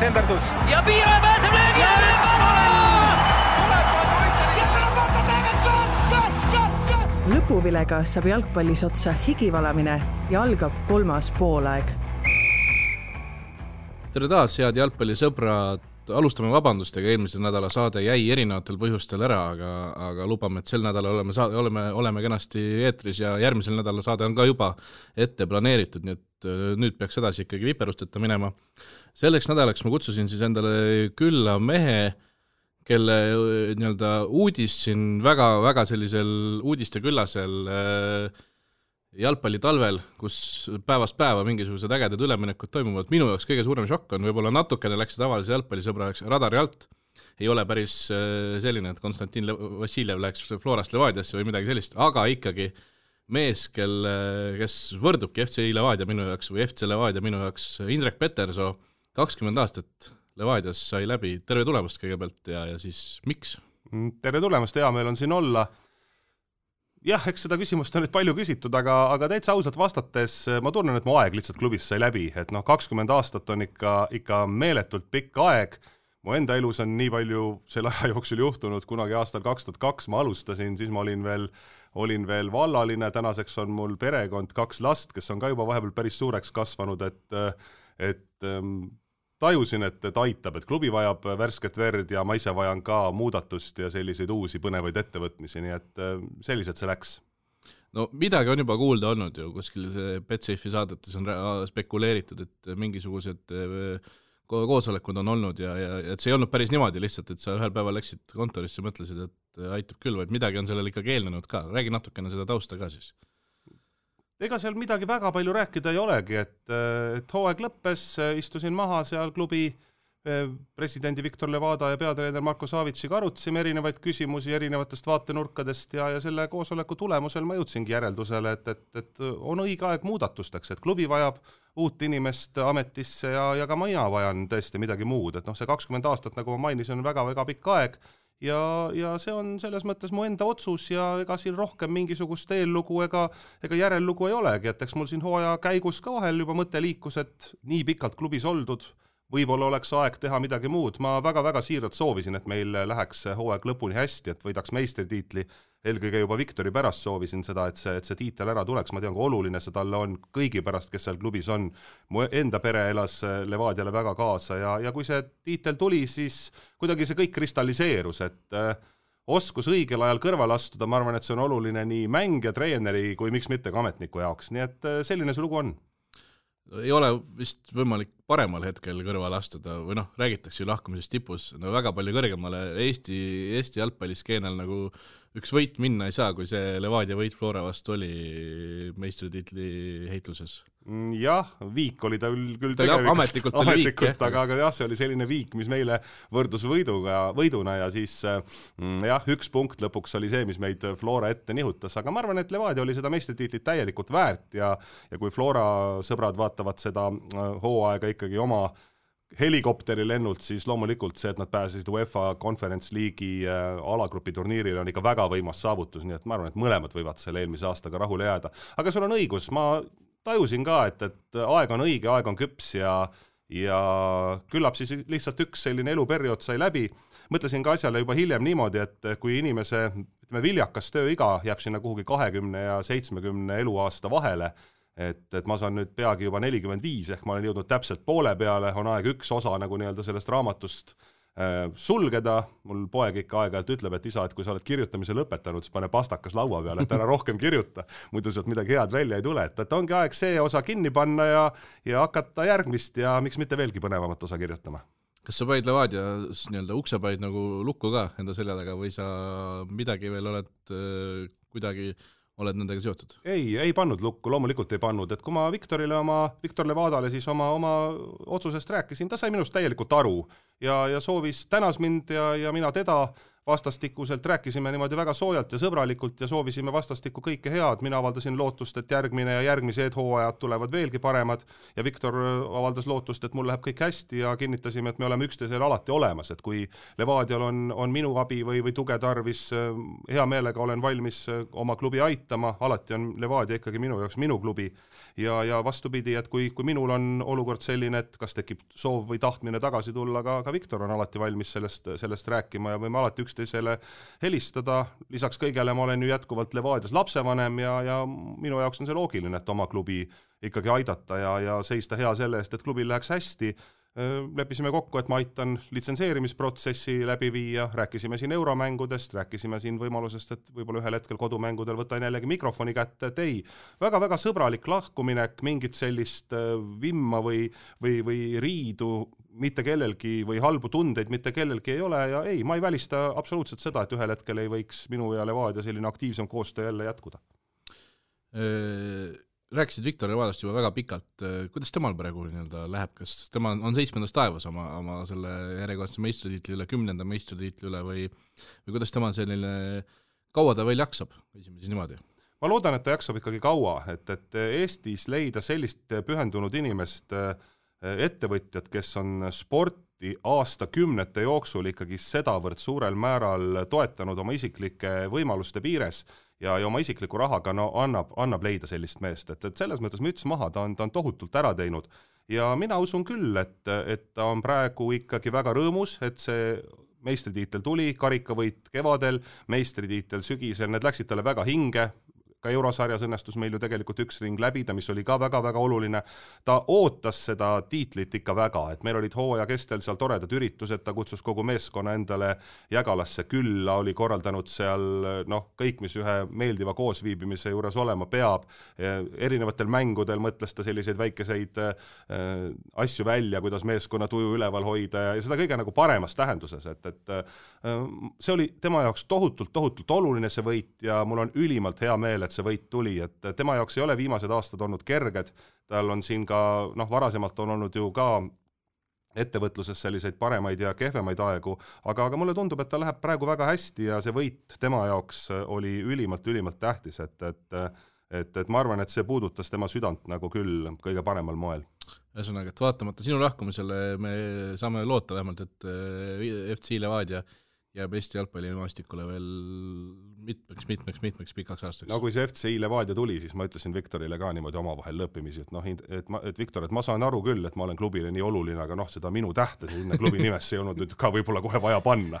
senderdus. Ja Piiraja pääseb löögi ja lõpuvilega saab jalgpallis otsa higivalamine ja algab 3. poolaeg. Tere taas, head jalgpallisõbrad. Alustame vabandustega, eelmisel nädala saade jäi erinevatel põhjustel ära, aga lubame, et sel nädalal oleme kenasti eetris ja järgmisel nädala saade on ka juba ette planeeritud, nii et nüüd peaks edasi ikkagi viperusteta minema. Selleks nädalaks ma kutsusin siis endale külla mehe, kelle uudis siin väga sellisel uudiste küllasel jalgpallitalvel, kus päevast päeva mingisugused ägedad üleminekud toimuvad. Minu jaoks kõige suurem šokk on, võib-olla natukene läks tavalise jalgpallisõbraks radari alt. Ei ole päris selline, et Konstantin Vassiljev läks Florast Levadiasse või midagi sellist, aga ikkagi mees, kes võrdubki FC Levadia minu jaoks või FC Levadia minu jaoks, Indrek Petersoo, 20 aastat Levadias sai läbi. Terve tulemast kõigepealt ja siis miks? Tere tulemast, hea meil on siin olla. Jah, eks seda küsimust on nüüd palju küsitud, aga täitsa ausalt vastates ma tunnen, et mu aeg lihtsalt klubis sai läbi, et 20 aastat on ikka meeletult pikk aeg. Mu enda elus on nii palju selle aja jooksul juhtunud, kunagi aastal 2002 ma alustasin, siis ma olin veel vallaline, tänaseks on mul perekond 2 last, kes on ka juba vahepeal päris suureks kasvanud, et tajusin, et aitab, et klubi vajab värsket verd ja ma ise vajan ka muudatust ja selliseid uusi põnevaid ettevõtmisi, nii et sellised see läks. No midagi on juba kuulda olnud ju, kuskil see Betsafe'i saadetes on spekuleeritud, et mingisugused koosolekud on olnud ja et see ei olnud päris niimoodi lihtsalt, et sa ühel päeval läksid kontorisse, mõtlesid, et aitab küll, vaid midagi on sellel ikkagi eelnenud ka. Räägi natukene seda tausta ka siis. Ega seal midagi väga palju rääkida ei olegi, et hooaeg lõppes, istusin maha seal klubi presidendi Viktor Levada ja peatreener Marko Savitšiga arutasime erinevaid küsimusi erinevatest vaatenurkadest ja selle koosoleku tulemusel ma jõudsingi järeldusele, et on õige aeg muudatusteks, et klubi vajab uut inimest ametisse ja ka mina vajan tõesti midagi muud, et see 20 aastat, nagu ma mainisin, on väga pikk aeg ja see on selles mõttes mu enda otsus ja ega siin rohkem mingisugust eellugu ega järellugu ei olegi, et eks mul siin hooaja käigus ka vahel juba mõte liikus, et nii pikalt klubis oldud, võib-olla oleks aeg teha midagi muud. Ma väga siiralt soovisin, et meil läheks hooaeg lõpuni hästi, et võidaks meistritiitli. Eelkõige juba Viktori pärast soovisin seda, et see tiitel ära tuleks. Ma tean, kui oluline see talle on kõigi pärast, kes seal klubis on. Mu enda pere elas Levadiale väga kaasa ja kui see tiitel tuli, siis kuidagi see kõik kristalliseerus, et oskus õigel ajal kõrval astuda, ma arvan, et see on oluline nii mängija, treeneri kui miks mitte ka ametniku jaoks. Nii et selline see lugu on. Ei ole vist võimalik paremal hetkel kõrvale astuda või räägitakse ju lahkumisest tipus, väga palju kõrgemale Eesti jalgpalliskeenel nagu üks võit minna ei saa, kui see Levadia võit Flora vastu oli meistritiitli heitluses. Jah, viik oli ta küll ametlikult oli viik, aga jah, see oli selline viik, mis meile võrdus võiduna ja siis jah, 1 punkt lõpuks oli see, mis meid Flora ette nihutas, aga ma arvan, et Levadia oli seda meistritiitlit täielikult väärt ja kui Flora sõbrad vaatavad seda hooaega ikkagi oma helikopteri lennult, siis loomulikult see, et nad pääsesid UEFA Conference League'i alagrupi turniirile on ikka väga võimas saavutus, nii et ma arvan, et mõlemad võivad selle eelmise aastaga rahule jääda. Aga sul on õigus, ma tajusin ka, et aeg on õige, aeg on küps ja küllap siis lihtsalt üks selline eluperiood sai läbi. Mõtlesin ka asjale juba hiljem niimoodi, et kui inimese viljakas tööiga jääb sinna kuhugi 20 ja 70 eluaasta vahele, et ma saan nüüd peagi juba 45, ehk ma olen jõudnud täpselt poole peale, on aeg üks osa nagu sellest raamatust sulgeda. Mul poeg ikka aeg-ajalt ütleb, et isa, et kui sa oled kirjutamise lõpetanud, siis pane pastakas laua peale, et ära rohkem kirjuta, muidu sealt midagi head välja ei tule, et ongi aeg see osa kinni panna ja hakata järgmist ja miks mitte veelgi põnevamat osa kirjutama. Kas sa panid Levadias uksepaid nagu lukku ka enda selja taga või sa midagi veel oled kuidagi oled nendega seotud? Ei pannud lukku, loomulikult ei pannud, et kui ma Viktor Levadale siis oma otsusest rääkisin, ta sai minust täielikult aru ja soovis, tänas mind ja mina teda vastastikuselt, rääkisime niimoodi väga soojalt ja sõbralikult ja soovisime vastastikku kõike head. Mina avaldasin lootust, et järgmine ja järgmised hooajad tulevad veelgi paremad ja Viktor avaldas lootust, et mul läheb kõik hästi ja kinnitasime, et me oleme üksteisel alati olemas, et kui Levadial on minu abi või tuge tarvis, hea meelega olen valmis oma klubi aitama, alati on Levadia ikkagi minu jaoks minu klubi ja vastupidi, et kui minul on olukord selline, et kas tekib soov või tahtmine tagasi tulla, ka Viktor on alati valmis sellest rääkima ja võime alati üksteisele helistada. Lisaks kõigele ma olen ju jätkuvalt Levadias lapsevanem ja minu jaoks on see loogiline, et oma klubi ikkagi aidata ja seista hea selle eest, et klubil läheks hästi. Leppisime kokku, et ma aitan litsenseerimisprotsessi läbi viia, rääkisime siin euromängudest, rääkisime siin võimalusest, et võib-olla ühel hetkel kodumängudel võtan jällegi mikrofoni kätte, et ei, väga-väga sõbralik lahkuminek, mingit sellist vimma või riidu mitte kellelgi või halbu tundeid mitte kellelgi ei ole ja ei, ma ei välista absoluutselt seda, et ühel hetkel ei võiks minu ja Levadia selline aktiivsem koostöö jälle jätkuda. Rääkisid Viktor Levadast juba väga pikalt, kuidas temal praegu läheb, kas tema on 7. taevas oma selle järjekordse meistritiitli üle, 10. meistritiitli üle või kuidas tema selline, kaua ta veel jaksab, võisime siis niimoodi? Ma loodan, et ta jaksab ikkagi kaua, et Eestis leida sellist pühendunud inimest, ettevõtjad, kes on sporti aastakümnete jooksul ikkagi sedavõrd suurel määral toetanud oma isiklike võimaluste piires ja oma isikliku rahaga annab leida sellist meest, et selles mõttes müts maha, ta on tohutult ära teinud ja mina usun küll, et ta on praegu ikkagi väga rõõmus, et see meistritiitel tuli, karikavõit kevadel, meistritiitel sügisel, need läksid talle väga hinge, ka eurosarjas õnnestus meil ju tegelikult üks ring läbida, mis oli ka väga-väga oluline. Ta ootas seda tiitlit ikka väga, et meil olid hooaja kestel seal toredad üritused, ta kutsus kogu meeskonna endale Jägalasse külla, oli korraldanud seal kõik, mis ühe meeldiva koosviibimise juures olema peab. Erinevatel mängudel mõtles ta selliseid väikeseid asju välja, kuidas meeskonna tuju üleval hoida ja seda kõige nagu paremas tähenduses, et see oli tema jaoks tohutult oluline see võit ja mul on ülimalt hea meel, et see võit tuli, et tema jaoks ei ole viimased aastad olnud kerged, tal on siin ka, varasemalt on olnud ju ka ettevõtluses selliseid paremaid ja kehvemaid aegu, aga mulle tundub, et ta läheb praegu väga hästi ja see võit tema jaoks oli ülimalt tähtis, et ma arvan, et see puudutas tema südant nagu küll kõige paremal moel. Ühesõnaga, et vaatamata sinu lahkumisele me saame loota vähemalt, et FC Levadia jääb Eesti jalgpallimaastikule veel mitmeks pikaks aastaks. No kui see FC Levadia tuli, siis ma ütlesin Viktorile ka niimoodi omavahel lõppimisi, et Viktor, et ma saan aru küll, et ma olen klubile nii oluline, aga seda minu tähte sinna klubi nimesse ei olnud nüüd ka võib-olla kohe vaja panna.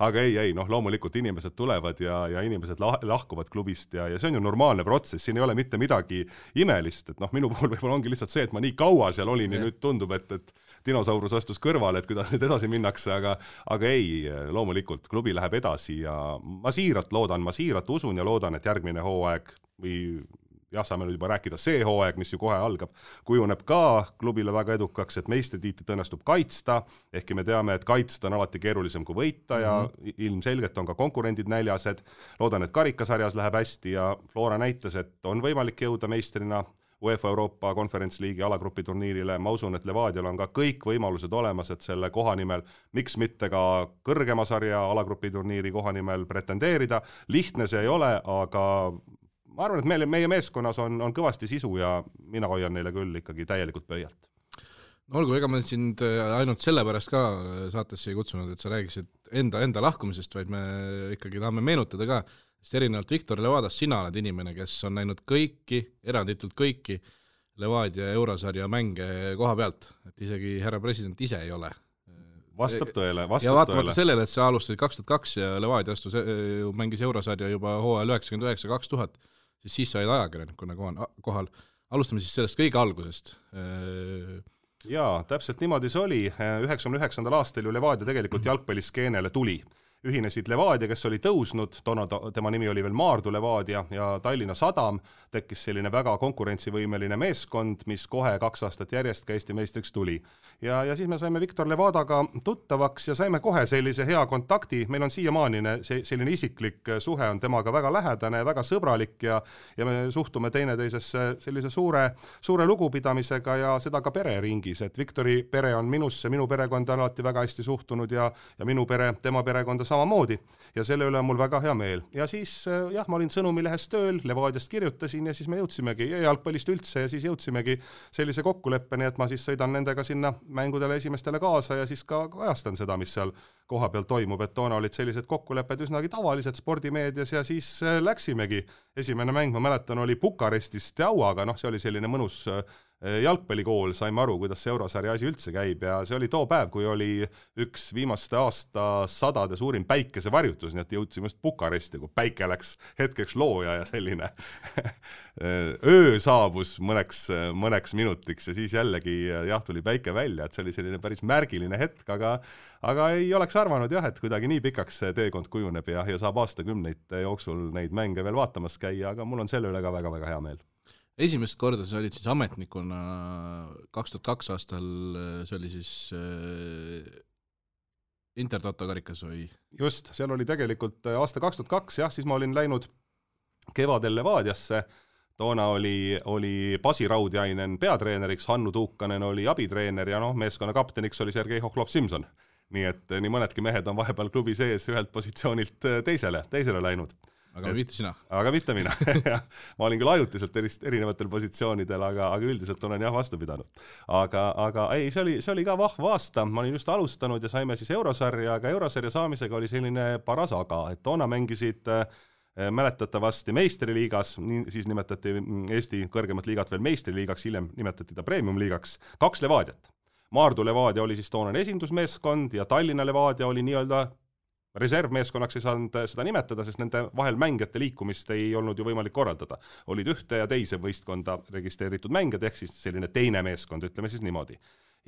Aga ei, loomulikult inimesed tulevad ja inimesed lahkuvad klubist ja see on ju normaalne protsess, siin ei ole mitte midagi imelist, et minu puhul võib-olla ongi lihtsalt see, et ma nii kaua seal olin ja nüüd tundub, et dinosaurus astus kõrvale, et kuidas nüüd edasi minnakse, aga ei, loomulikult klubi läheb edasi ja ma siiralt usun ja loodan, et järgmine hooaeg või saame nüüd juba rääkida see hooaeg, mis ju kohe algab, kujuneb ka klubile väga edukaks, et meistritiitlit õnnestub kaitsta, ehkki me teame, et kaitsta on alati keerulisem kui võita ja ilmselgelt on ka konkurendid näljased. Loodan, et karikasarjas läheb hästi ja Flora näitas, et on võimalik jõuda meistrina UEFA Euroopa Conference League'i alagrupi turniirile. Ma usun, et Levadial on ka kõik võimalused olemas, et selle koha nimel, miks mitte ka kõrgema sarja alagrupi turniiri koha nimel pretendeerida. Lihtne see ei ole, aga ma arvan, et meie meeskonnas on kõvasti sisu ja mina hoian neile küll ikkagi täielikult pöialt. Olgu, ega me sind ainult sellepärast ka saatesse ei kutsunud, et sa räägisid enda lahkumisest, vaid me ikkagi tahame meenutada ka, sest erinevalt Viktor Levadast sina oled inimene, kes on näinud eranditult kõiki Levadia eurosarja mänge koha pealt, et isegi härra president ise ei ole. Vastab tõele. Ja vaatamata sellele, et sa alustasid 2002 ja Levadia mängis eurosarja juba hooajal 99-2000, siis sa olid ajakirjanikuna kohal. Alustame siis sellest kõige algusest. Jaa, täpselt niimoodi see oli. 99. aastal ju Levadia tegelikult jalgpalliskeenele tuli. ühinesid Levadia, kes oli tõusnud, toona tema nimi oli veel Maardu Levadia ja Tallinna Sadam, tekkis selline väga konkurentsivõimeline meeskond, mis kohe 2 aastat järjest ka Eesti meistriks tuli. Ja siis me saime Viktor Levadaga tuttavaks ja saime kohe sellise hea kontakti, meil on siiamaanine selline isiklik suhe on temaga väga lähedane, väga sõbralik ja me suhtume teineteisesse sellise suure lugupidamisega ja seda ka pereringis, et Viktori pere on minusse, minu perekonda alati väga hästi suhtunud ja minu pere, tema perekonda samamoodi ja selle üle on mul väga hea meel. Ja siis ma olin Sõnumilehes tööl, Levadiast kirjutasin ja siis me jõudsimegi jalgpallist üldse ja siis jõudsimegi sellise kokkuleppeni, et ma siis sõidan nendega sinna mängudele esimestele kaasa ja siis ka ajastan seda, mis seal koha peal toimub, et toona olid sellised kokkulepped üsnagi tavalised spordimeedias ja siis läksimegi. Esimene mäng, ma mäletan, oli Bukarestis Steauaga, see oli selline mõnus jalgpallikool, saime aru, kuidas see eurosarja asi üldse käib ja see oli too päev, kui oli üks viimaste aasta sadade suurim päikesevarjutus, nii et jõudsime just Bukaresti, kui päike läks hetkeks looja ja selline öö saabus mõneks minutiks ja siis jällegi tuli päike välja, et see oli selline päris märgiline hetk, aga ei oleks arvanud et kuidagi nii pikaks see teekond kujuneb ja saab aastakümneid jooksul neid mänge veel vaatamas käia, aga mul on selle üle ka väga-väga hea meel. Esimest korda sa olid siis ametnikuna 2002 aastal, see oli siis Intertoto karikas või? Just, seal oli tegelikult aasta 2002, siis ma olin läinud kevadel Levadiasse, toona oli Pasi Raudjainen peatreeneriks, Hannu Tuukanen oli abitreener ja meeskonna kapteniks oli Sergei Hokhlov-Simson. Nii et nii mõnedki mehed on vahepeal klubi sees ühelt positsioonilt teisele läinud. Aga mitte sina. Aga mitte mina. Ma olin küll ajutiselt erinevatel positsioonidel, aga üldiselt olen vastu pidanud. Aga ei, see oli ka vahva aasta. Ma olin just alustanud ja saime siis eurosarja, aga eurosarja saamisega oli selline paras aga, et toona mängisid mäletatavasti meistriliigas, siis nimetati Eesti kõrgemat liigat veel meistriliigaks, hiljem nimetati ta premium-liigaks, 2 Levadiat. Maardu Levadia oli siis toonane esindusmeeskond ja Tallinna Levadia oli nii-öelda reservmeeskonnaks ei saanud seda nimetada, sest nende vahel mängijate liikumist ei olnud ju võimalik korraldada. Olid ühte ja teise võistkonda registreeritud mängijad, ehk siis selline teine meeskond, ütleme siis niimoodi.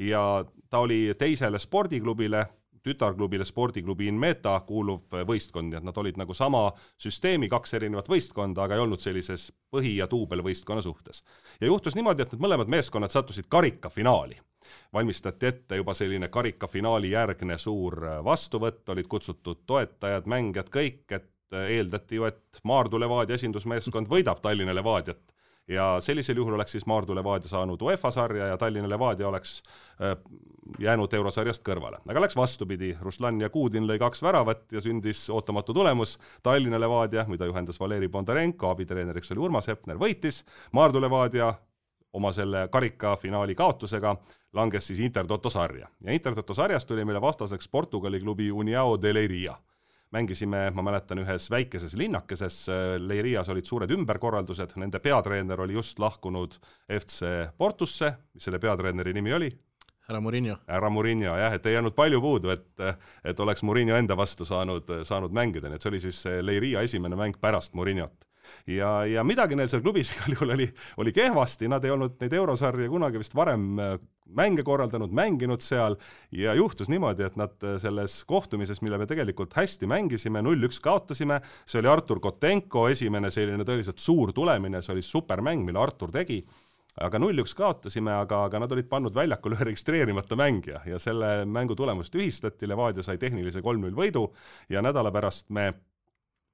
Ja ta oli teisele spordiklubile, tütarklubile spordiklubi Inmeta kuuluv võistkond, nii et nad olid nagu sama süsteemi 2 erinevat võistkonda, aga ei olnud sellises põhi- ja tuubelvõistkonna suhtes. Ja juhtus niimoodi, et need mõlemad meeskonnad sattusid karikafinaali. Valmistati ette juba selline karikafinaali järgne suur vastuvõtt, olid kutsutud toetajad, mängijad kõik, et eeldati ju, et Maardu Levadia esindusmeeskond võidab Tallinna Levadiat. Ja sellisel juhul oleks siis Maardu Levadia saanud UEFA sarja ja Tallinna Levadia oleks jäänud eurosarjast kõrvale. Aga läks vastupidi, Ruslan ja Kuudin lõi 2 väravat ja sündis ootamatu tulemus. Tallinna Levadia, mida juhendas Valeri Bondarenko, abitreeneriks oli Urmas Hepner, võitis. Maardu Levadia oma selle karikafinaali kaotusega langes siis Intertoto sarja. Ja Intertoto sarjast tuli meile vastaseks Portugali klubi União de Leiria. Mängisime, ma mäletan, ühes väikeses linnakeses, Leirias olid suured ümberkorraldused, nende peatreener oli just lahkunud FC Portusse, mis selle peatreeneri nimi oli? Härra Mourinho, et ei jäänud palju puudu, et oleks Mourinho enda vastu saanud mängida, nii et see oli siis Leiria esimene mäng pärast Mourinhot. Ja midagi neil seal klubis oli kehvasti, nad ei olnud neid eurosarja kunagi vist varem mänge korraldanud, mänginud seal ja juhtus niimoodi, et nad selles kohtumises, mille me tegelikult hästi mängisime, 0-1 kaotasime, see oli Artur Kotenko esimene selline tõeliselt suur tulemine, see oli supermäng, mille Artur tegi, aga 0-1 kaotasime, aga nad olid pannud väljakul ühe registreerimata mängija ja selle mängu tulemust ühistati, Levadia sai tehnilise 3-0 võidu ja nädala pärast me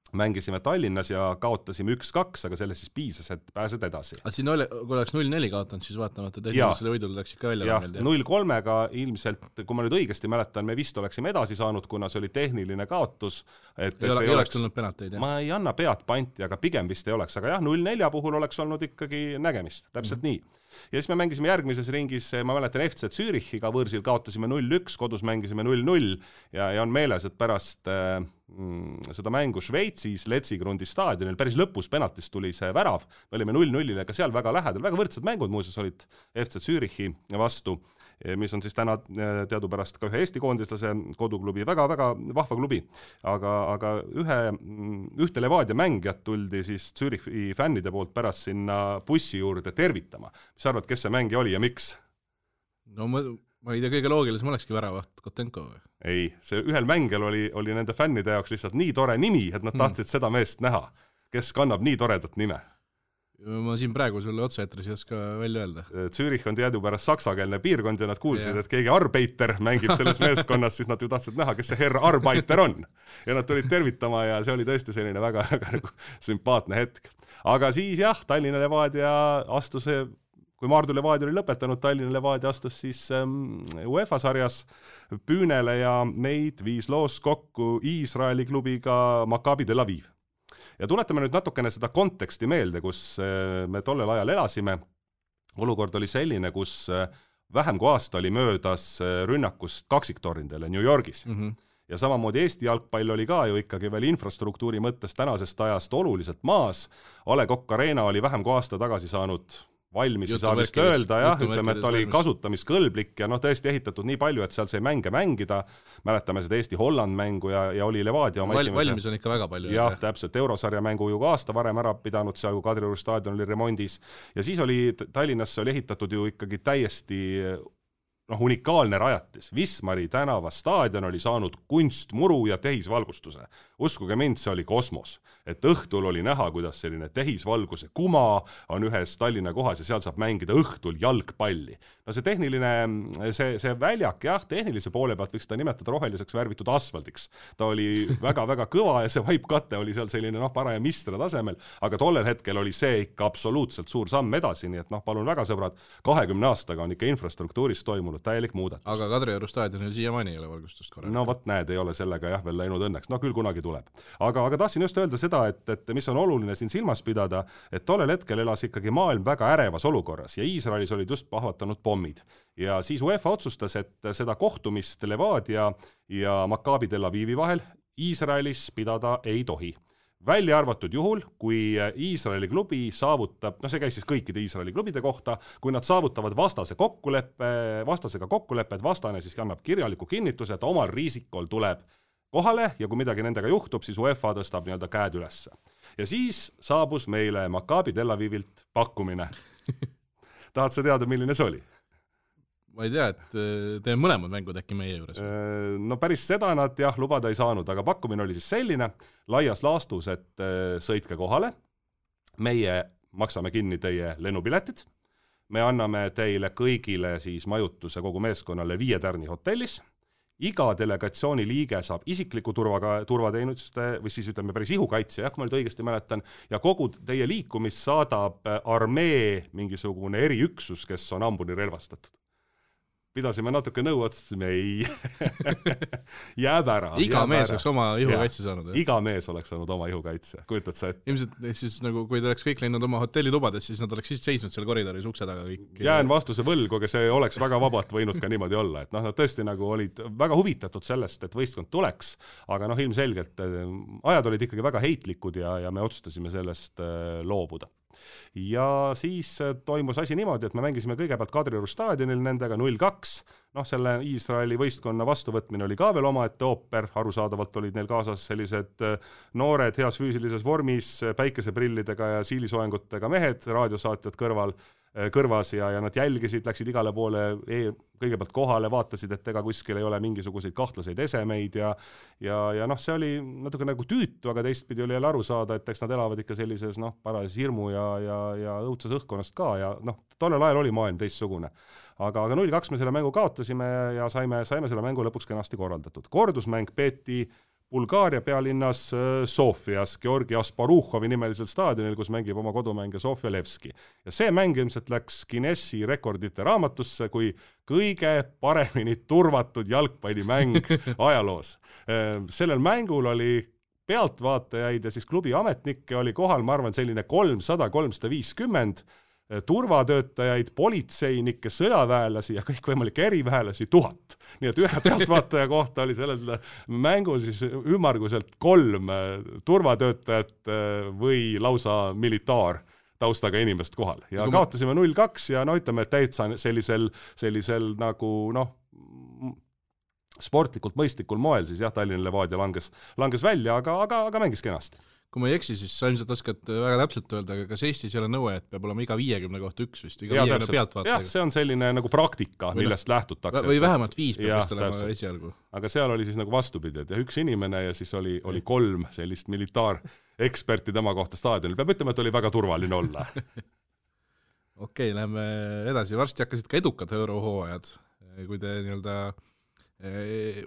mängisime Tallinnas ja kaotasime 1-2, aga sellest siis piisas, et pääsed edasi. Aga siin kui oleks 0-4 kaotanud, siis vaatamata tehnilisele võidule läks ikka välja. Ja 0-3-ga ilmselt, kui ma nüüd õigesti mäletan, me vist oleksime edasi saanud, kuna see oli tehniline kaotus. Ei oleks tulnud penalteid, ma ei anna pead panti, aga pigem vist ei oleks. Aga 0-4 puhul oleks olnud ikkagi nägemist, täpselt nii. Ja siis me mängisime järgmises ringis, ma mäletan FC Zürichiga võõrsil kaotasime 0-1, kodus mängisime 0-0 ja on meeles, et pärast seda mängu Šveitsis Letsigrundi staadionil päris lõpus penaltist tuli see värav, me olime 0-0-le ka seal väga lähedal, väga võrdsed mängud muuseas olid FC Zürichi vastu, mis on siis täna teadupärast ka ühe Eesti koondislase koduklubi, väga-väga vahva klubi, aga ühte Levadia mängijat tuldi siis Zürichi fännide poolt pärast sinna bussi juurde tervitama. Mis arvad, kes see mängija oli ja miks? No Ma ei tea, kõige loogilisem olekski väravaht Kotenko või? Ei, see ühel mängel oli nende fännide jaoks lihtsalt nii tore nimi, et nad tahtsid seda meest näha, kes kannab nii toredat nime. Ma siin praegu sulle otseetris ei oska välja öelda. Zürich on teadupärast saksakeelne piirkond ja nad kuulsid, et keegi Arbeiter mängib selles meeskonnas, siis nad ju tahtsid näha, kes see herr Arbeiter on. Ja nad tulid tervitama ja see oli tõesti selline väga nagu sümpaatne hetk. Aga siis jah, Tallinna Levadia astus, kui Maardu Levadia oli lõpetanud, Tallinna Levadia astus siis UEFA sarjas püünele ja neid viis loos kokku Iisraeli klubiga Maccabi Tel Aviv. Ja tuletame nüüd natukene seda konteksti meelde, kus me tollel ajal elasime. Olukord oli selline, kus vähem kui aasta oli möödas rünnakust kaksiktornidele New Yorgis. Ja samamoodi Eesti jalgpall oli ka ju ikkagi veel infrastruktuuri mõttes tänasest ajast oluliselt maas. A. Le Coq Arena oli vähem kui aasta tagasi saanud valmis, ei saa vist öelda, jah, ütleme, et oli kasutamiskõlblik ja tõesti ehitatud nii palju, et seal sai mänge mängida. Mäletame seda Eesti-Holland mängu ja oli Levadia oma valmis on ikka väga palju. Jah, täpselt, eurosarja mängu ju ka aasta varem ära pidanud, seal kui Kadrioru staadion oli remondis. Ja siis oli Tallinnasse oli ehitatud ju ikkagi täiesti unikaalne rajatis. Wismari tänava staadion oli saanud kunstmuru ja tehisvalgustuse. Uskuge mind, see oli kosmos. Et õhtul oli näha, kuidas selline tehisvalguse kuma on ühes Tallinna kohas ja seal saab mängida õhtul jalgpalli. No see tehniline, see väljak, jah, tehnilise poole pealt võiks ta nimetada roheliseks värvitud asfaldiks. Ta oli väga-väga kõva ja see vaipkate oli seal selline paraja mistra tasemel, aga tollel hetkel oli see ikka absoluutselt suur samm edasi, nii et palun väga sõbrad, 20 aastaga on ikka infrastruktuuris toimunud täielik muudatus. Aga Kadrioru staadionil siiamaani ei ole valgustust korraga. No vot näed, ei ole sellega jah veel läinud õnneks. No küll kunagi tuleb. Aga tahtsin just öelda seda, et mis on oluline siin silmas pidada, et tollel hetkel elas ikkagi maailm väga ärevas olukorras ja Iisraelis olid just pahvatanud pommid. Ja siis UEFA otsustas, et seda kohtumist Levadia ja Maccabi Tel Avivi vahel Iisraelis pidada ei tohi. Välja arvatud juhul, kui Iisraeli klubi saavutab, see käis siis kõikide Iisraeli klubide kohta, kui nad saavutavad vastasega kokkulepped, vastane siis annab kirjaliku kinnituse, et omal riisikol tuleb kohale ja kui midagi nendega juhtub, siis UEFA tõstab nii-öelda käed ülesse. Ja siis saabus meile Maccabi Tel Avivilt pakkumine. Tahad sa teada, milline see oli? Ma ei tea, et teeme mõlemad mängud äkki meie juures. No päris seda nad jah lubada ei saanud, aga pakkumine oli siis selline, laias laastus, et sõitke kohale, meie maksame kinni teie lennupiletid, me anname teile kõigile siis majutuse kogu meeskonnale 5 tärni hotellis, iga delegatsiooni liige saab isikliku turvateenuste või siis ütleme päris ihukaitse, kui ma nüüd õigesti mäletan, ja kogu teie liikumist saadab armee mingisugune eriüksus, kes on ambuni relvastatud. Pidasime natuke nõu, otsustasime ei jääb ära. Iga mees oleks oma ihukaitse saanud. Iga mees oleks saanud oma ihukaitse. Kujutad sa, et... Ilmselt siis nagu, kui te oleks kõik läinud oma hotellitubades, siis nad oleks siis seisnud seal koridoris ukse taga kõik. Jään vastuse võlgu, aga see oleks väga vabalt võinud ka niimoodi olla. Et nad tõesti nagu olid väga huvitatud sellest, et võistkond tuleks, aga ilmselgelt ajad olid ikkagi väga heitlikud ja me otsustasime sellest loobuda. Ja siis toimus asi niimoodi, et me mängisime kõigepealt Kadrioru staadionil nendega 0-2. Selle Iisraeli võistkonna vastuvõtmine oli ka veel omaette ooper, arusaadavalt olid neil kaasas sellised noored heas füüsilises vormis, päikeseprillidega ja siilisoengutega mehed, raadiosaatjad kõrvas ja nad jälgisid, läksid igale poole kõigepealt kohale, vaatasid, et ega kuskil ei ole mingisuguseid kahtlaseid esemeid ja see oli natuke nagu tüütu, aga teistpidi oli jälle aru saada, et eks nad elavad ikka sellises parajas hirmu ja õudses õhkkonnast ka ja tollel ajal oli maailm teistsugune. Aga 0-2 me selle mängu kaotasime ja saime selle mängu lõpuks kenasti korraldatud. Kordusmäng peeti Bulgaaria pealinnas Sofias, Georgi Asparuhovi nimelisel staadionil, kus mängib oma kodumänge Sofia Levski. Ja see mäng ilmselt läks Guinessi rekordite raamatusse kui kõige paremini turvatud jalgpallimäng ajaloos. Sellel mängul oli pealtvaatajaid ja siis klubi ametnikke oli kohal, ma arvan, selline 300-350 turvatöötajaid, politseinikke, sõjaväelasi ja kõikvõimalikke eriväelasi 1000. Nii et ühe pealtvaataja kohta oli sellel mängul siis ümmarguselt 3 turvatöötajat või lausa militaar taustaga inimest kohal. Ja kaotasime 0-2 ja ütleme, et täitsa sellisel nagu sportlikult mõistlikul moel siis jah, Tallinna Levadia langes välja, aga mängis kenasti. kui ma ei eksi, siis sa ilmselt oskad väga täpselt öelda, aga kas Eestis ei ole nõue, et peab olema iga 50 kohta üks vist, iga 50 pealtvaataja? Jah, see on selline nagu praktika, millest lähtutakse. Või vähemalt 5 peab vist olema esialgu. Aga seal oli siis nagu vastupidi, et üks inimene ja siis oli 3 sellist militaareksperti tema kohta staadionil. Peab ütlema, et oli väga turvaline olla. Okei, läheme edasi. Varsti hakkasid ka edukad eurohooajad, kui te nii-öelda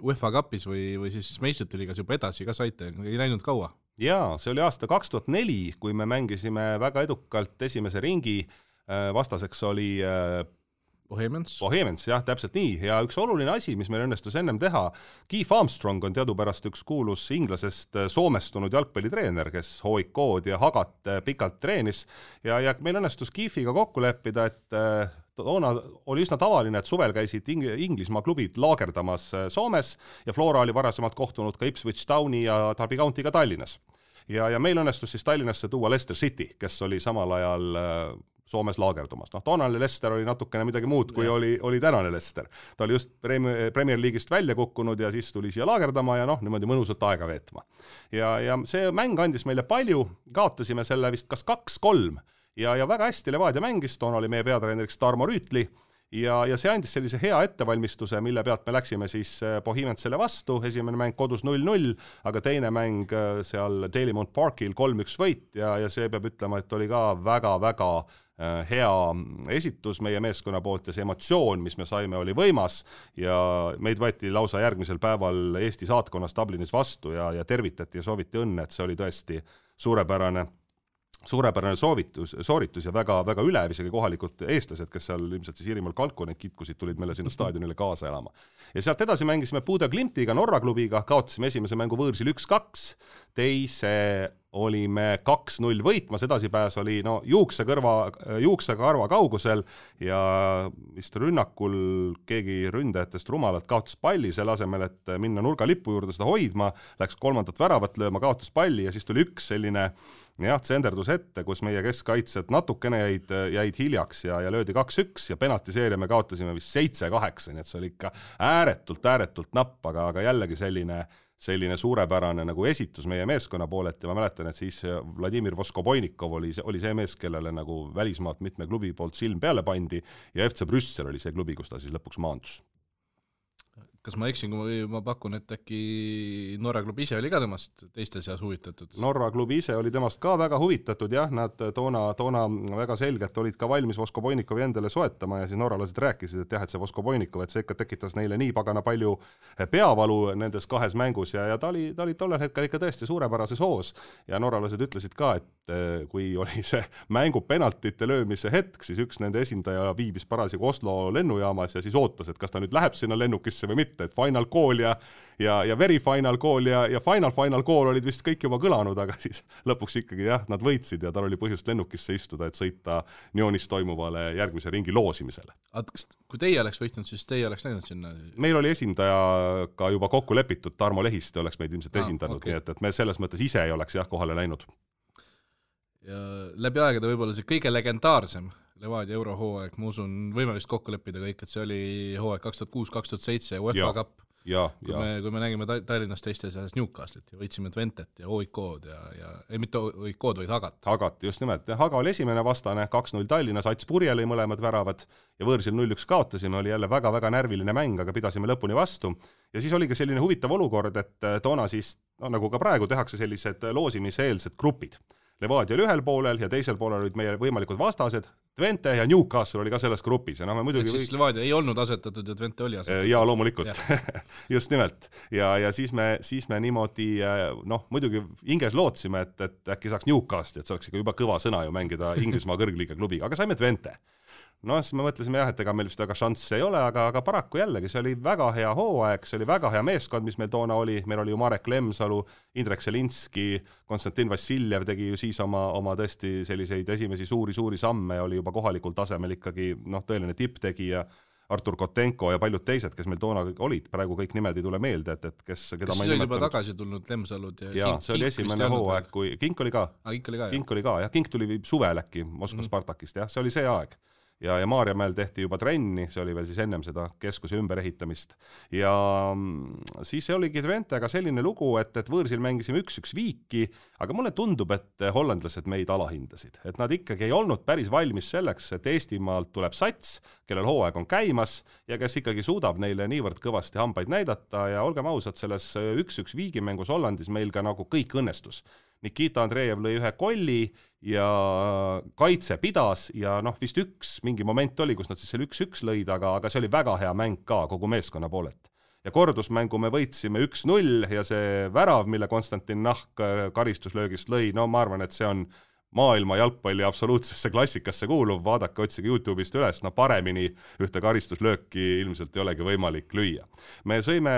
UEFA Cupis või siis meistrite liigas juba edasi ka saite, ei läinud kaua? Jaa, see oli aasta 2004, kui me mängisime väga edukalt esimese ringi, vastaseks oli Bohemians, jah, täpselt nii. Ja üks oluline asi, mis meil õnnestus ennem teha, Keith Armstrong on teadupärast üks kuulus inglasest soomestunud jalgpallitreener, kes HOIK-d ja Hagat pikalt treenis ja meil õnnestus Keithiga kokku leppida, et toona oli üsna tavaline, et suvel käisid Inglismaa klubid laagerdamas Soomes ja Flora oli varasemalt kohtunud ka Ipswich Towni ja Derby County'ga Tallinnas. Ja meil õnnestus siis Tallinnasse tuua Leicester City, kes oli samal ajal Soomes laagerdumas. Toonane Leicester oli natukene midagi muud, kui oli tänane Leicester. Ta oli just Premier League'ist välja kukkunud ja siis tuli siia laagerdama ja niimoodi mõnusalt aega veetma. Ja see mäng andis meile palju, kaotasime selle vist kas 2-3 ja väga hästi Levadia mängis, toona oli meie peatreeneriks Tarmo Rüütli ja see andis sellise hea ettevalmistuse, mille pealt me läksime siis Bohemiansele vastu, esimene mäng kodus 0-0, aga teine mäng seal Dalymount Parkil 3-1 võit ja see peab ütlema, et oli ka väga-väga hea esitus meie meeskonna poolt ja see emotsioon, mis me saime, oli võimas ja meid võeti lausa järgmisel päeval Eesti saatkonnas Dublinis vastu ja tervitati ja sooviti õnne, et see oli tõesti suurepärane sooritus ja väga ülev, isegi kohalikud eestlased, kes seal ilmselt siis Iirimaal Kalkuneid kitkusid, tulid meile sinna staadionile kaasa elama. Ja sealt edasi mängisime Buda Glimtiga, Norra klubiga, kaotasime esimese mängu võõrsil 1-2, teise olime 2-0 võitmas, edasipääs oli juuksekarva kaugusel ja vist rünnakul keegi ründajatest rumalalt kaotas palli selle asemel, et minna nurgalippu juurde seda hoidma, läks 3. väravat lööma, kaotas palli ja siis tuli üks selline tsenderdus ette, kus meie keskkaitsed natukene jäid hiljaks ja löödi 2-1 ja penaltiseeria me kaotasime vist 7-8, nii et see oli ikka ääretult napp, aga jällegi selline suurepärane nagu esitus meie meeskonna poolet ja ma mäletan, et siis Vladimir Voskoboinikov oli see mees, kellele nagu välismaalt mitme klubi poolt silm peale pandi ja FC Brüssel oli see klubi, kus ta siis lõpuks maandus. Kas ma eksin, kui ma pakun, et äkki Norra klubi ise oli ka temast teiste seas huvitatud? Norra klubi ise oli temast ka väga huvitatud, jah, nad toona väga selgelt olid ka valmis Voskoboinikovi endale soetama ja siis norralased rääkisid, et jah, et see Voskoboinikov, et see ikka tekitas neile nii pagana palju peavalu nendes kahes mängus ja ta oli tollel hetkel ikka tõesti suurepärases hoos ja norralased ütlesid ka, et kui oli see mängu penaltite löömise hetk, siis üks nende esindaja viibis parasjagu Oslo lennujaamas ja siis ootas, et kas ta nüüd läheb sinna lennukisse või mitte, et final call ja very final call ja final call olid vist kõik juba kõlanud, aga siis lõpuks ikkagi jah, nad võitsid ja tal oli põhjust lennukisse istuda, et sõita Nyonis toimuvale järgmise ringi loosimisele. Kui teie oleks võitnud, siis teie oleks läinud sinna? Meil oli esindaja ka juba kokku lepitud, Tarmo Lehiste oleks meid ilmselt esindanud, okay. Nii et me selles mõttes ise ei oleks jah kohale läinud. Ja läbi aegade võib-olla see kõige legendaarsem Levadia eurohooaeg, ma usun, võime vist kokku leppida kõik, et see oli hooaeg 2006-2007 UEFA Cup. Kui me nägime Tallinnast teiste seas Newcastlit ja võitsime Twentet ja OIK-d ja mitte OIK-d, vaid Hagat. Hagat, just nimelt. Haga oli esimene vastane, 2-0 Tallinnas, Ats Purje lõi mõlemad väravad ja võõrsil 0-1 kaotasime, oli jälle väga närviline mäng, aga pidasime lõpuni vastu. Ja siis oli ka selline huvitav olukord, et toona siis, nagu ka praegu, tehakse sellised loosimiseelsed grupid. Levadia oli ühel poolel ja teisel poolel olid meie võimalikud vastased, Twente ja Newcastle oli ka selles grupis. Ja me muidugi siis Levadia ei olnud asetatud ja Twente oli asetatud. Ja loomulikult, just nimelt. Ja siis me niimoodi, muidugi hinges lootsime, et äkki saaks Newcastle, et see oleks ikka juba kõva sõna ju mängida Inglismaa kõrgliiga klubiga, aga saime Twente. Siis me mõtlesime jah, et ega meil vist väga šansse ei ole, aga paraku jällegi, see oli väga hea hooaeg, see oli väga hea meeskond, mis meil toona oli, meil oli ju Marek Lemsalu, Indrek Selinski, Konstantin Vassiljev tegi ju siis oma tõesti selliseid esimesi suuri samme ja oli juba kohalikul tasemel ikkagi tõeline tipptegija, Artur Kotenko ja paljud teised, kes meil toona olid, praegu kõik nimed ei tule meelde, et keda ma ei nimetanud. Juba tagasi tulnud Lemsalud ja see oli esimene hooaeg, kui Kink oli ka. Kink oli ka, jah. Kink tuli suvel äkki Moskva Spartakist, jah, see oli see aeg. ja Maarjamäel tehti juba trenni, see oli veel siis ennem seda keskuse ümberehitamist. Ja siis oligi Twentega selline lugu, et võõrsil mängisime 1-1 viiki, aga mulle tundub, et hollandlased meid alahindasid. Et nad ikkagi ei olnud päris valmis selleks, et Eestimaalt tuleb sats, kellel hooaeg on käimas ja kes ikkagi suudab neile niivõrd kõvasti hambaid näidata ja olgem ausad, selles 1-1 viigimängus Hollandis meil ka nagu kõik õnnestus. Nikita Andreev lõi ühe kolli ja kaitse pidas ja vist mingi moment oli, kus nad siis selle 1-1 lõid, aga see oli väga hea mäng ka kogu meeskonna poolelt. Ja kordusmängu me võitsime 1-0 ja see värav, mille Konstantin Nahk karistuslöögist lõi, ma arvan, et see on maailma jalgpalli absoluutsesse klassikasse kuuluv, vaadake, otsige YouTube'ist üles, paremini ühte karistuslööki ilmselt ei olegi võimalik lüüa. Me sõime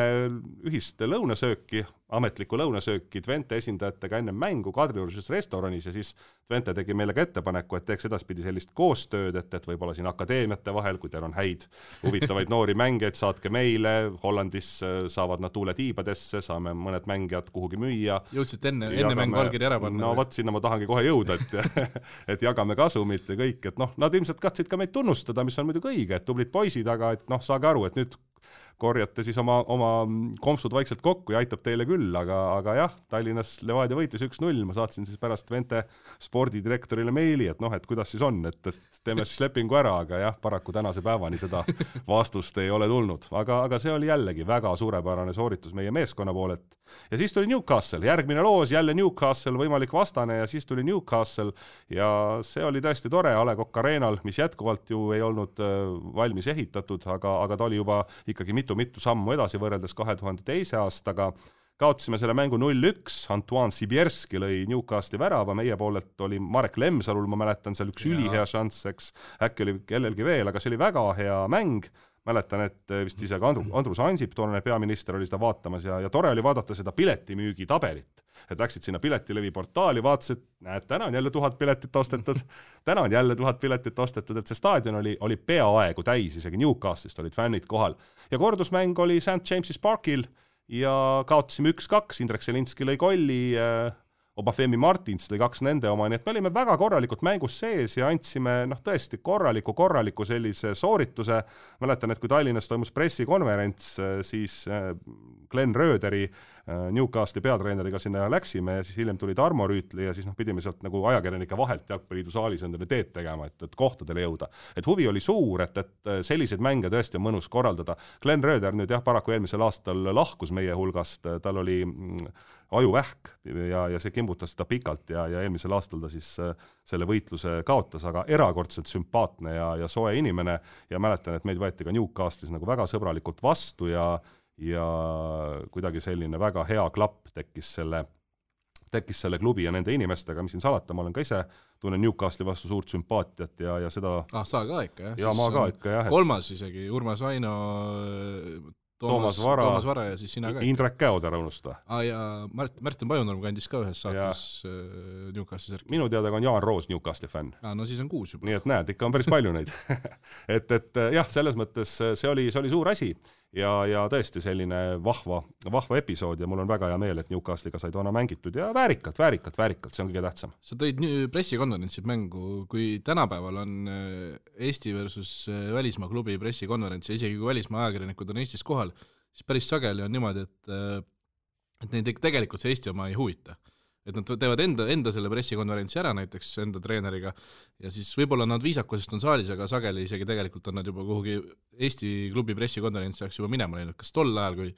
ühist lõunasööki, ametlikku lõunasööki Twente esindajatega enne mängu Kadriorus restoranis ja siis Twente tegi meile ka ettepaneku, et teeks edaspidi sellist koostööd, et võib-olla siin akadeemiate vahel, kui teil on häid huvitavaid noori mängijaid, saatke meile, Hollandis saavad nad tuuletiibadesse, saame mõned mängijad kuhugi müüa. Jõudsid enne mängu allkiri ära panna? No vot, sinna ma tahangi kohe jõuda, et jagame kasumit ja kõik, et nad ilmselt katsid ka meid tunnustada, mis on muidugi õige, et tublid poisid, aga et saage aru, et nüüd korjate siis oma kompsud vaikselt kokku ja aitab teile küll, aga jah, Tallinnas Levadia võitis 1-0, ma saatsin siis pärast Twente spordidirektorile meili, et kuidas siis on, et teeme siis lepingu ära, aga jah, paraku tänase päevani seda vastust ei ole tulnud, aga see oli jällegi väga suurepärane sooritus meie meeskonna poolelt. Ja siis tuli Newcastle, järgmine loos, jälle Newcastle, võimalik vastane ja siis tuli Newcastle ja see oli tõesti tore A. Le Coq Arenal, mis jätkuvalt ju ei olnud valmis ehitatud, aga ta oli juba ikkagi mitu sammu edasi võrreldes 2002. aastaga. Kaotasime selle mängu 0-1, Antoine Sibierski lõi Newcastle'i värava, meie poolelt oli Marek Lemsalul, ma mäletan seal üks ülihea šanss, eks, äkki oli kellelgi veel, aga see oli väga hea mäng. Mäletan, et vist isegi Andrus Ansip, toonane peaminister, oli seda vaatamas ja tore oli vaadata seda piletimüügi tabelit. Et läksid sinna piletilevi portaali, vaatasid, näed, täna on jälle 1000 piletit ostetud, täna on jälle 1000 piletit ostetud, et see staadion oli peaaegu täis, isegi Newcastle'ist olid fännid kohal. Ja kordusmäng oli St. James's Parkil ja kaotasime 1-2, Indrek Selinski lõi kolli, Obafemi Martins lõi 2 nende oma, nii et me olime väga korralikult mängus sees ja andsime tõesti korraliku sellise soorituse. Mäletan, et kui Tallinnas toimus pressikonverents, siis Glenn Röderi Newcastle'i peatreeneriga sinna läksime ja siis hiljem tuli Tarmo Rüütli ja siis pidime sealt nagu ajakirjanike vahelt Jalgpalliliidu saalis endale teed tegema, et kohtadele jõuda. Et huvi oli suur, et selliseid mänge tõesti on mõnus korraldada. Glenn Röder nüüd paraku eelmisel aastal lahkus meie hulgast, tal oli ajuvähk ja see kimbutas seda pikalt ja eelmisel aastal ta siis selle võitluse kaotas, aga erakordselt sümpaatne ja soe inimene ja mäletan, et meid võeti ka Newcastle'is nagu väga sõbralikult vastu ja kuidagi selline väga hea klapp tekkis selle klubi ja nende inimestega, mis siin salata, ma olen ka ise tunnen Newcastle'i vastu suurt sümpaatiat ja seda... sa ka ikka, jah? Ja ma ka ikka, jah. Kolmas isegi, Urmas Vaino, Toomas Vara ja siis sina ka. Indrek Käoder unusta. Ja Märten Pajunurm kandis ka ühes saates Newcastle'i särki. Minu teada on Jaan Roos Newcastle'i fänn. No siis on 6 juba. Nii et näed, ikka on päris palju neid. et jah, selles mõttes see oli suur asi ja tõesti selline vahva episood ja mul on väga hea meel, et Newcastle'iga sai toona mängitud ja väärikalt, see on kõige tähtsam. Sa tõid pressikonverentsid mängu, kui tänapäeval on Eesti versus välismaa klubi pressikonverents ja isegi kui välismaa ajakirjanikud on Eestis kohal, siis päris sageli on niimoodi, et neid tegelikult see Eesti oma ei huvita. Et nad teevad enda selle pressikonverentsi ära näiteks enda treeneriga ja siis võib-olla nad viisakusest on saalis, aga sageli isegi tegelikult on nad juba kuhugi Eesti klubi pressikonverentsi saaks juba minema läinud. Kas tol ajal, kui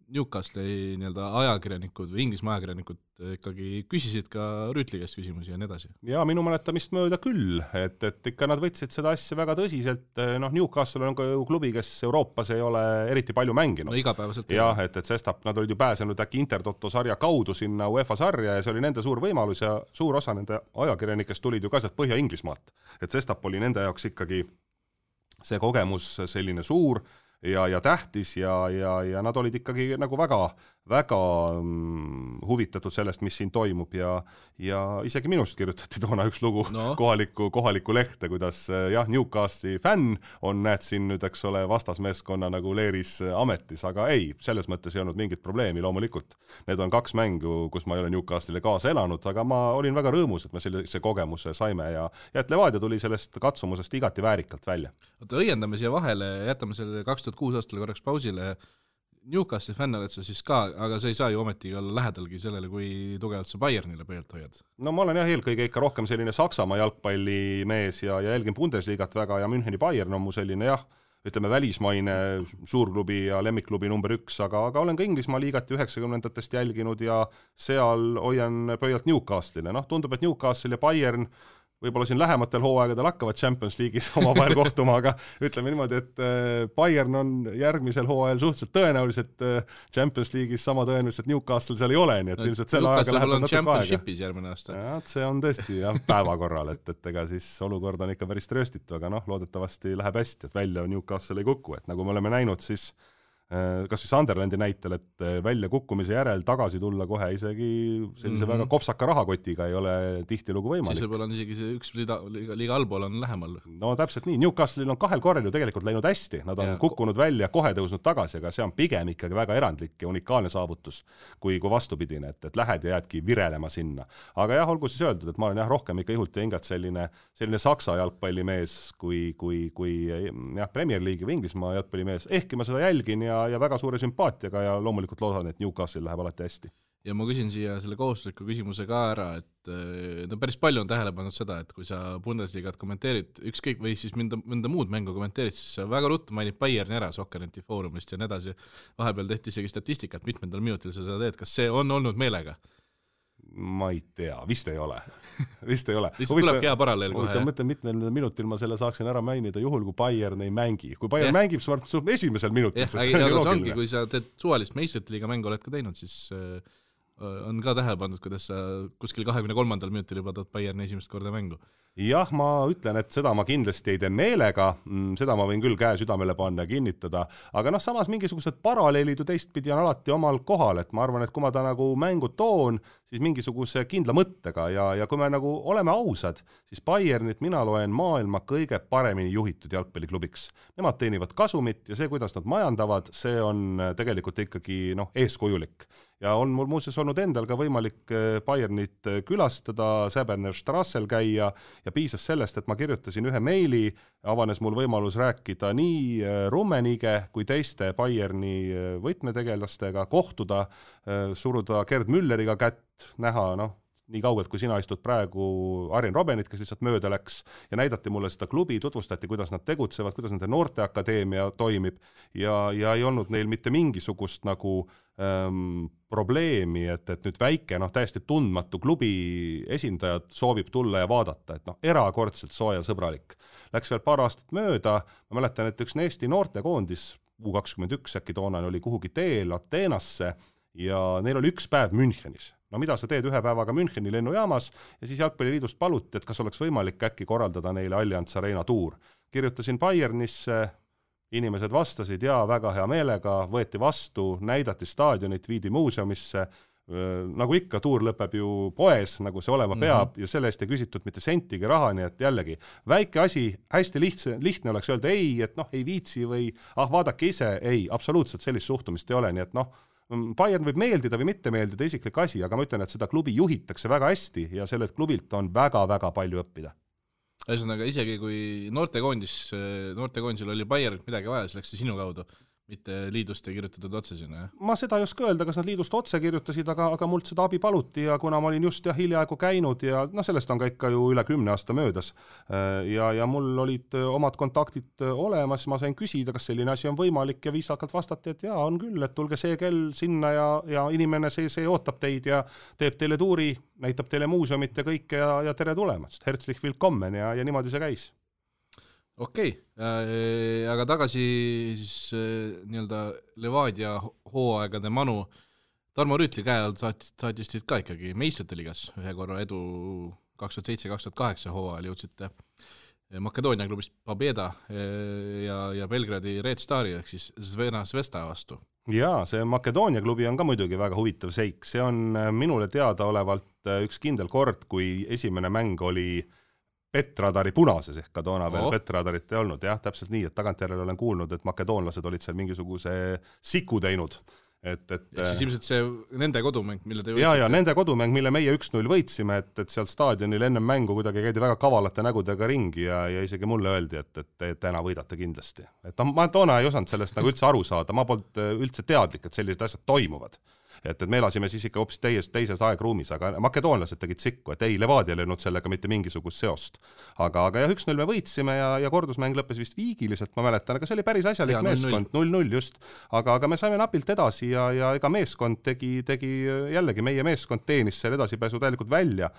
Newcastle'i ajakirjanikud või Inglismaa ajakirjanikud ikkagi küsisid ka Rüütli käest küsimusi ja nii edasi? Ja minu mäletamist mööda küll, et ikka nad võtsid seda asja väga tõsiselt. Newcastle on ka klubi, kes Euroopas ei ole eriti palju mänginud. No igapäevaselt. Jah, et sestap nad olid ju pääsenud äkki Intertoto sarja kaudu sinna UEFA sarja ja see oli nende suur võimalus ja suur osa nende ajakirjanikest tulid ju ka sealt Põhja-Inglismaalt. Et sestap oli nende jaoks ikkagi see kogemus selline suur ja tähtis ja nad olid ikkagi nagu väga väga huvitatud sellest, mis siin toimub ja isegi minust kirjutati toona üks lugu kohaliku lehte, kuidas jah, Newcastle'i fänn on, näed siin nüüd, eks ole, vastasmeeskonna nagu leeris ametis, aga ei, selles mõttes ei olnud mingit probleemi, loomulikult. Need on 2 mängu, kus ma ei ole Newcastle'ile kaasa elanud, aga ma olin väga rõõmus, et me sellise kogemuse saime ja et Levadia tuli sellest katsumusest igati väärikalt välja. Oota, õiendame siia vahele, jätame selle 2006 aastal korraks pausile. Newcastle fänn oled sa siis ka, aga sa ei saa ju ometigi olla lähedalgi sellele, kui tugevalt sa Bayernile pöölt hoiad. No ma olen jah eelkõige ikka rohkem selline Saksamaa jalgpallimees ja jälgin Bundesliigat väga ja Müncheni Bayern on mu selline jah, ütleme välismaine suurklubi ja lemmikklubi number 1, aga olen ka Inglismaa liigat 90-ndatest jälginud ja seal hoian pöialt Newcastle'ile. Tundub, et Newcastle ja Bayern võib-olla siin lähematel hooaegadel hakkavad Champions League'is omavahel kohtuma, aga ütleme niimoodi, et Bayern on järgmisel hooajal suhteliselt tõenäoliselt Champions League'is sama tõenäoliselt Newcastle seal ei ole, nii et ilmselt selle ajaga läheb natuke aega. Championship'is järgmine aasta. Ja, see on tõesti jah, päevakorral, et ega siis olukord on ikka päris trööstitu, aga loodetavasti läheb hästi, et välja Newcastle ei kuku, et nagu me oleme näinud, siis kas siis Sunderlandi näitel, et välja kukkumise järel tagasi tulla kohe isegi sellise väga kopsaka rahakotiga ei ole tihtilugu võimalik. Siis võib-olla on isegi see üks liiga allpool on lähemal. No täpselt nii, Newcastle'il on 2 korral ju tegelikult läinud hästi, nad on kukkunud välja, kohe tõusnud tagasi, aga see on pigem ikkagi väga erandlik ja unikaalne saavutus, kui vastupidine, et lähed ja jäädki virelema sinna. Aga jah, olgu siis öeldud, et ma olen jah rohkem ikka ihult ja hingat selline Saksa jalgpallimees kui jah, Premier League'i või Inglismaa jalgpallimees, ehkki ma seda jälgin ja väga suure sümpaatiaga ja loomulikult loodan, et Newcastle läheb alati hästi. Ja ma küsin siia selle kohustusliku küsimuse ka ära, et päris palju on tähele pannud seda, et kui sa Bundesligat kommenteerid ükskõik või siis mõnda muud mängu kommenteerid, siis sa väga ruttu mainid Bayerni ära Sokkerneti foorumist ja nii edasi. Vahepeal tehti isegi statistikat, mitmendal minutil sa seda teed. Kas see on olnud meelega? Ma ei tea, vist ei ole. Lihtsalt tulebki hea paralleel kohe. Mõtlen, mitmel minutil ma selle saaksin ära mainida juhul, kui Bayern ei mängi. Kui Bayern mängib, siis esimesel minutil. Aga see ongi, kui sa teed suvalist meistriliiga mängu oled ka teinud, siis on ka tähele pandud, kuidas sa kuskil 23. minutil juba tood Bayerni esimest korda mängu. Jah, ma ütlen, et seda ma kindlasti ei tee meelega, seda ma võin küll käe südamele panna ja kinnitada, aga samas mingisugused paralleelid ju teistpidi on alati omal kohal, et ma arvan, et kui ma ta nagu mängu toon, siis mingisuguse kindla mõttega ja kui me nagu oleme ausad, siis Bayernit mina loen maailma kõige paremini juhitud jalgpalliklubiks. Nemad teenivad kasumit ja see, kuidas nad majandavad, see on tegelikult ikkagi eeskujulik. Ja on mul muuseas olnud endal ka võimalik Bayernit külastada, Säberner Strassel käia ja piisas sellest, et ma kirjutasin ühe meili, avanes mul võimalus rääkida nii Rummenige kui teiste Bayerni võtmetegelastega, kohtuda, suruda Gerd Mülleriga kätt, näha, nii kaugelt, kui sina istud praegu Arjen Robbenit, kes lihtsalt mööda läks ja näidati mulle seda klubi, tutvustati, kuidas nad tegutsevad, kuidas nende noorteakadeemia toimib ja ei olnud neil mitte mingisugust nagu probleemi, et nüüd väike, täiesti tundmatu klubi esindajad soovib tulla ja vaadata, et erakordselt sooja sõbralik. Läks veel paar aastat mööda, ma mäletan, et üks Eesti noortekoondis, U21 äkki toonane oli kuhugi teel Ateenasse ja neil oli 1 päev Münchenis. Mida sa teed 1 päevaga Müncheni lennujaamas ja siis Jalgpalliliidust paluti, et kas oleks võimalik äkki korraldada neile Allianz Arena tuur. Kirjutasin Bayernisse, inimesed vastasid ja väga hea meelega, võeti vastu, näidati staadionit, viidi muuseumisse, nagu ikka tuur lõpeb ju poes, nagu see olema peab ja selle eest ei küsitud mitte sentigi raha, nii et jällegi väike asi, hästi lihtne oleks öelda ei, et ei viitsi või vaadake ise, ei, absoluutselt sellist suhtumist ei ole, nii et Bayern võib meeldida või mitte meeldida isiklik asi, aga ma ütlen, et seda klubi juhitakse väga hästi ja sellelt klubilt on väga-väga palju õppida. Ühesõnaga, isegi kui noortekoondisel oli Bayernit midagi vaja, siis läks see sinu kaudu, mitte liidust ei kirjutatud otse sinna, jah? Ma seda ei oska öelda, kas nad liidust otse kirjutasid, aga mult seda abi paluti ja kuna ma olin just hiljaaegu käinud ja sellest on ka ikka ju üle 10 aasta möödas ja mul olid omad kontaktid olemas, ma sain küsida, kas selline asi on võimalik ja viisakalt vastati, et jaa, on küll, et tulge see kell sinna ja inimene see ootab teid ja teeb teile tuuri, näitab teile muuseumit ja kõike ja tere tulemast, herzlich willkommen ja niimoodi see käis. Okei, aga tagasi siis nii-öelda Levadia hooaegade manu. Tarmo Rüütli käe all saatis teid ka ikkagi meistrite liigas ühe korra edu 2007-2008 hooajal jõudsite Makedoonia klubist Pobeda ja Belgradi Red Stari ehk siis Zvena Zvesta vastu. Jaa, see Makedoonia klubi on ka muidugi väga huvitav seik. See on minule teadaolevalt üks kindel kord, kui esimene mäng oli Petradari punases, ehk ka toona veel Petradarit ei olnud. Jah, täpselt nii, et tagantjärele olen kuulnud, et makedoonlased olid seal mingisuguse siku teinud. Ja siis ilmselt see nende kodumäng, mille te võitsite? Ja nende kodumäng, mille meie 1-0 võitsime, et seal staadionil enne mängu kuidagi käidi väga kavalate nägudega ringi ja isegi mulle öeldi, et täna võidate kindlasti. Et ma toona ei osanud sellest nagu üldse aru saada, ma polnud üldse teadlik, et sellised asjad toimuvad. Et me elasime siis ikka hoopis teises aegruumis, aga makedoonlased tegid sikku, et ei, Levadia ei löönud sellega mitte mingisugust seost. Aga jah, 1-0 me võitsime ja kordusmäng lõppes vist viigiliselt, ma mäletan, aga see oli päris asjalik meeskond, 0-0 just. Aga me saime napilt edasi ja ega meeskond tegi jällegi, meie meeskond teenis seal edasipääsu täielikult välja,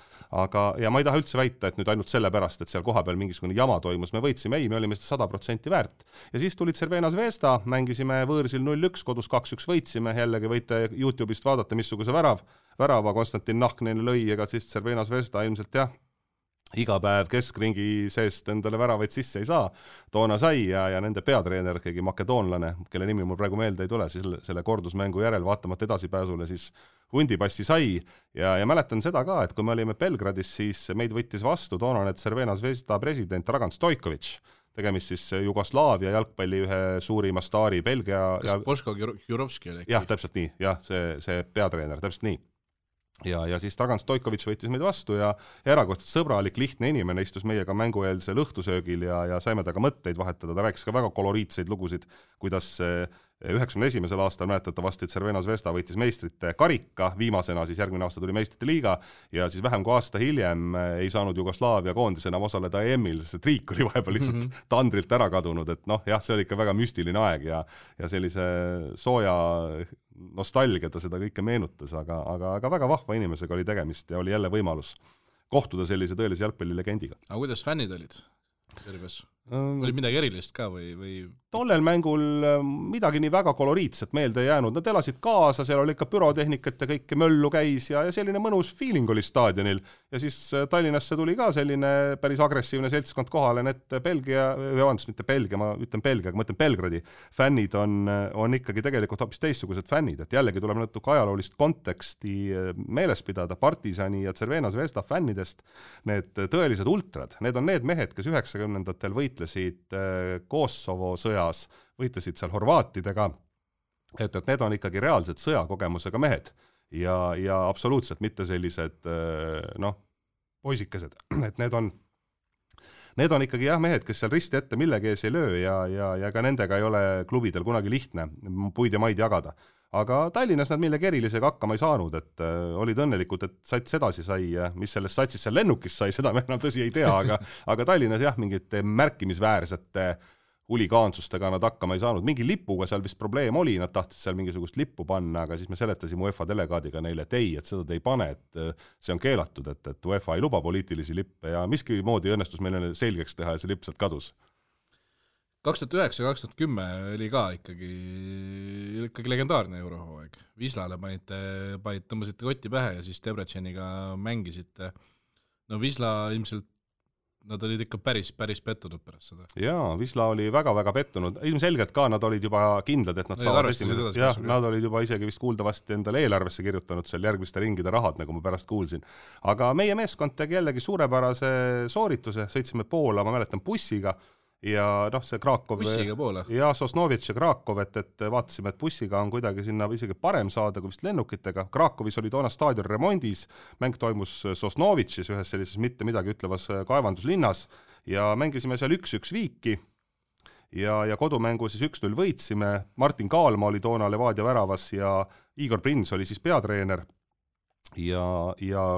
ja ma ei taha üldse väita, et nüüd ainult selle pärast, et seal koha peal mingisugune jama toimus, me võitsime, ei, me olime seda 100% väärt. Ja siis tulid Cervena Zvezda, mängisime võõrsil 0-1, kodus 2-1 võitsime, jällegi võite YouTube'ist vaadata, missuguse värava Konstantin Nahknen lõi, ega siis Cervena Zvezda ilmselt jah, iga päev keskringi seest endale väravaid sisse ei saa. Toona sai ja nende peatreener, keegi makedoonlane, kelle nimi mul praegu meelde ei tule, siis selle kordusmängu järel vaatamata edasipääsule siis hundipassi sai ja mäletan seda ka, et kui me olime Belgradis, siis meid võttis vastu toonane Cervena Zvezda president Dragan Stojković, tegemist siis Jugoslaavia jalgpalli ühe suurima staari Belgia. Kas Boško Jurovski oli? Jah, täpselt nii. Jah, see peatreener, täpselt nii. Ja siis Dragan Stojković võttis meid vastu ja erakordselt sõbralik, lihtne inimene istus meiega mängueelsel õhtusöögil ja saime taga mõtteid vahetada. Ta rääkis ka väga koloriitseid lugusid, kuidas 91. aastal mäletatavasti Cervena Zvezda võitis meistrite karika, viimasena siis järgmine aasta tuli meistrite liiga ja siis vähem kui aasta hiljem ei saanud Jugoslaavia koondis enam osaleda EM-il, sest riik oli vahepeal lihtsalt tandrilt ära kadunud, et jah, see oli ikka väga müstiline aeg ja sellise sooja nostalgia ta seda kõike meenutas, aga väga vahva inimesega oli tegemist ja oli jälle võimalus kohtuda sellise tõelise jalgpallilegendiga. Aga kuidas fännid olid? Oli midagi erilist ka või? Tollel mängul midagi nii väga koloriitset meelde jäänud. Nad elasid kaasa, seal oli ikka pürotehnikat ja kõike möllu käis ja selline mõnus feeling oli staadionil. Ja siis Tallinnasse tuli ka selline päris agressiivne seltskond kohale, et mitte Belgia, ma ütlen Belgia, aga ma ütlen Belgradi fännid on ikkagi tegelikult hoopis teistsugused fännid, et jällegi tuleb natuke ajaloolist konteksti meeles pidada Partisani ja Cervena Zvezda fännidest. Need tõelised ultrad, need on need mehed, kes 90-ndatel võitlesid Kosovo sõjas, võitlesid seal horvaatidega, et need on ikkagi reaalselt sõjakogemusega mehed ja absoluutselt mitte sellised poisikesed, et need on ikkagi jah mehed, kes seal risti ette millegi ees ei löö ja ka nendega ei ole klubidel kunagi lihtne puid ja maid jagada. Aga Tallinnas nad millegi erilisega hakkama ei saanud, et olid õnnelikud, et sats edasi sai, mis sellest satsis seal lennukis sai, seda me enam tõsi ei tea, aga Tallinnas jah, mingite märkimisväärsete huligaansustega nad hakkama ei saanud. Mingi lipuga seal vist probleem oli, nad tahtsid seal mingisugust lippu panna, aga siis me seletasime UEFA delegaadiga neile, et ei, et seda te ei pane, et see on keelatud, et UEFA ei luba poliitilisi lippe ja miski moodi õnnestus meile selgeks teha ja see lipp sealt kadus. 2009-2010 oli ka ikkagi legendaarne eurohooaeg. Vislale tõmbasite kotti pähe ja siis Debreceniga mängisite. No Visla ilmselt, nad olid ikka päris pettunud pärast seda. Jaa, Visla oli väga pettunud. Ilmselgelt ka nad olid juba kindlad, et nad saavad esimesest. Jah, nad olid juba isegi vist kuuldavasti endale eelarvesse kirjutanud seal järgmiste ringide rahad, nagu ma pärast kuulsin. Aga meie meeskond tegi jällegi suurepärase soorituse, sõitsime Poola, ma mäletan bussiga, ja see Krakov ja Sosnovitš ja Krakov, et vaatasime, et bussiga on kuidagi sinna isegi parem saada kui vist lennukitega. Krakovis oli toona staadion remondis, mäng toimus Sosnovitšis ühes sellises mitte midagi ütlevas kaevanduslinnas ja mängisime seal 1-1 viiki ja kodumängu siis 1-0 võitsime. Martin Kaalma oli toona Levadia väravas ja Igor Prins oli siis peatreener. Ja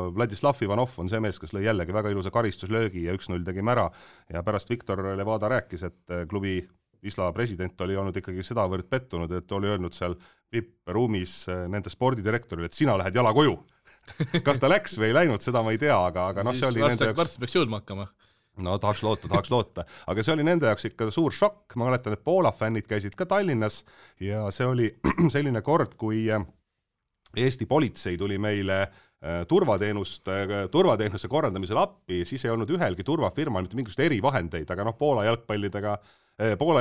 Vladislav Ivanov on see mees, kes lõi jällegi väga ilusa karistuslöögi ja 1-0 tegime ära ja pärast Viktor Levada rääkis, et klubi Visla president oli olnud ikkagi sedavõrd pettunud, et oli öelnud seal VIP-ruumis nende spordidirektorile, et sina lähed jala koju. Kas ta läks või ei läinud, seda ma ei tea, aga see oli nende jaoks... Varsti peaks jõudma hakkama. No tahaks loota, aga see oli nende jaoks ikka suur šokk. Ma mäletan, et Poola fännid käisid ka Tallinnas ja see oli selline kord, kui Eesti politsei tuli meile turvateenuse korraldamisel appi, siis ei olnud ühelgi turvafirmal mitte mingisugust erivahendeid, aga Poola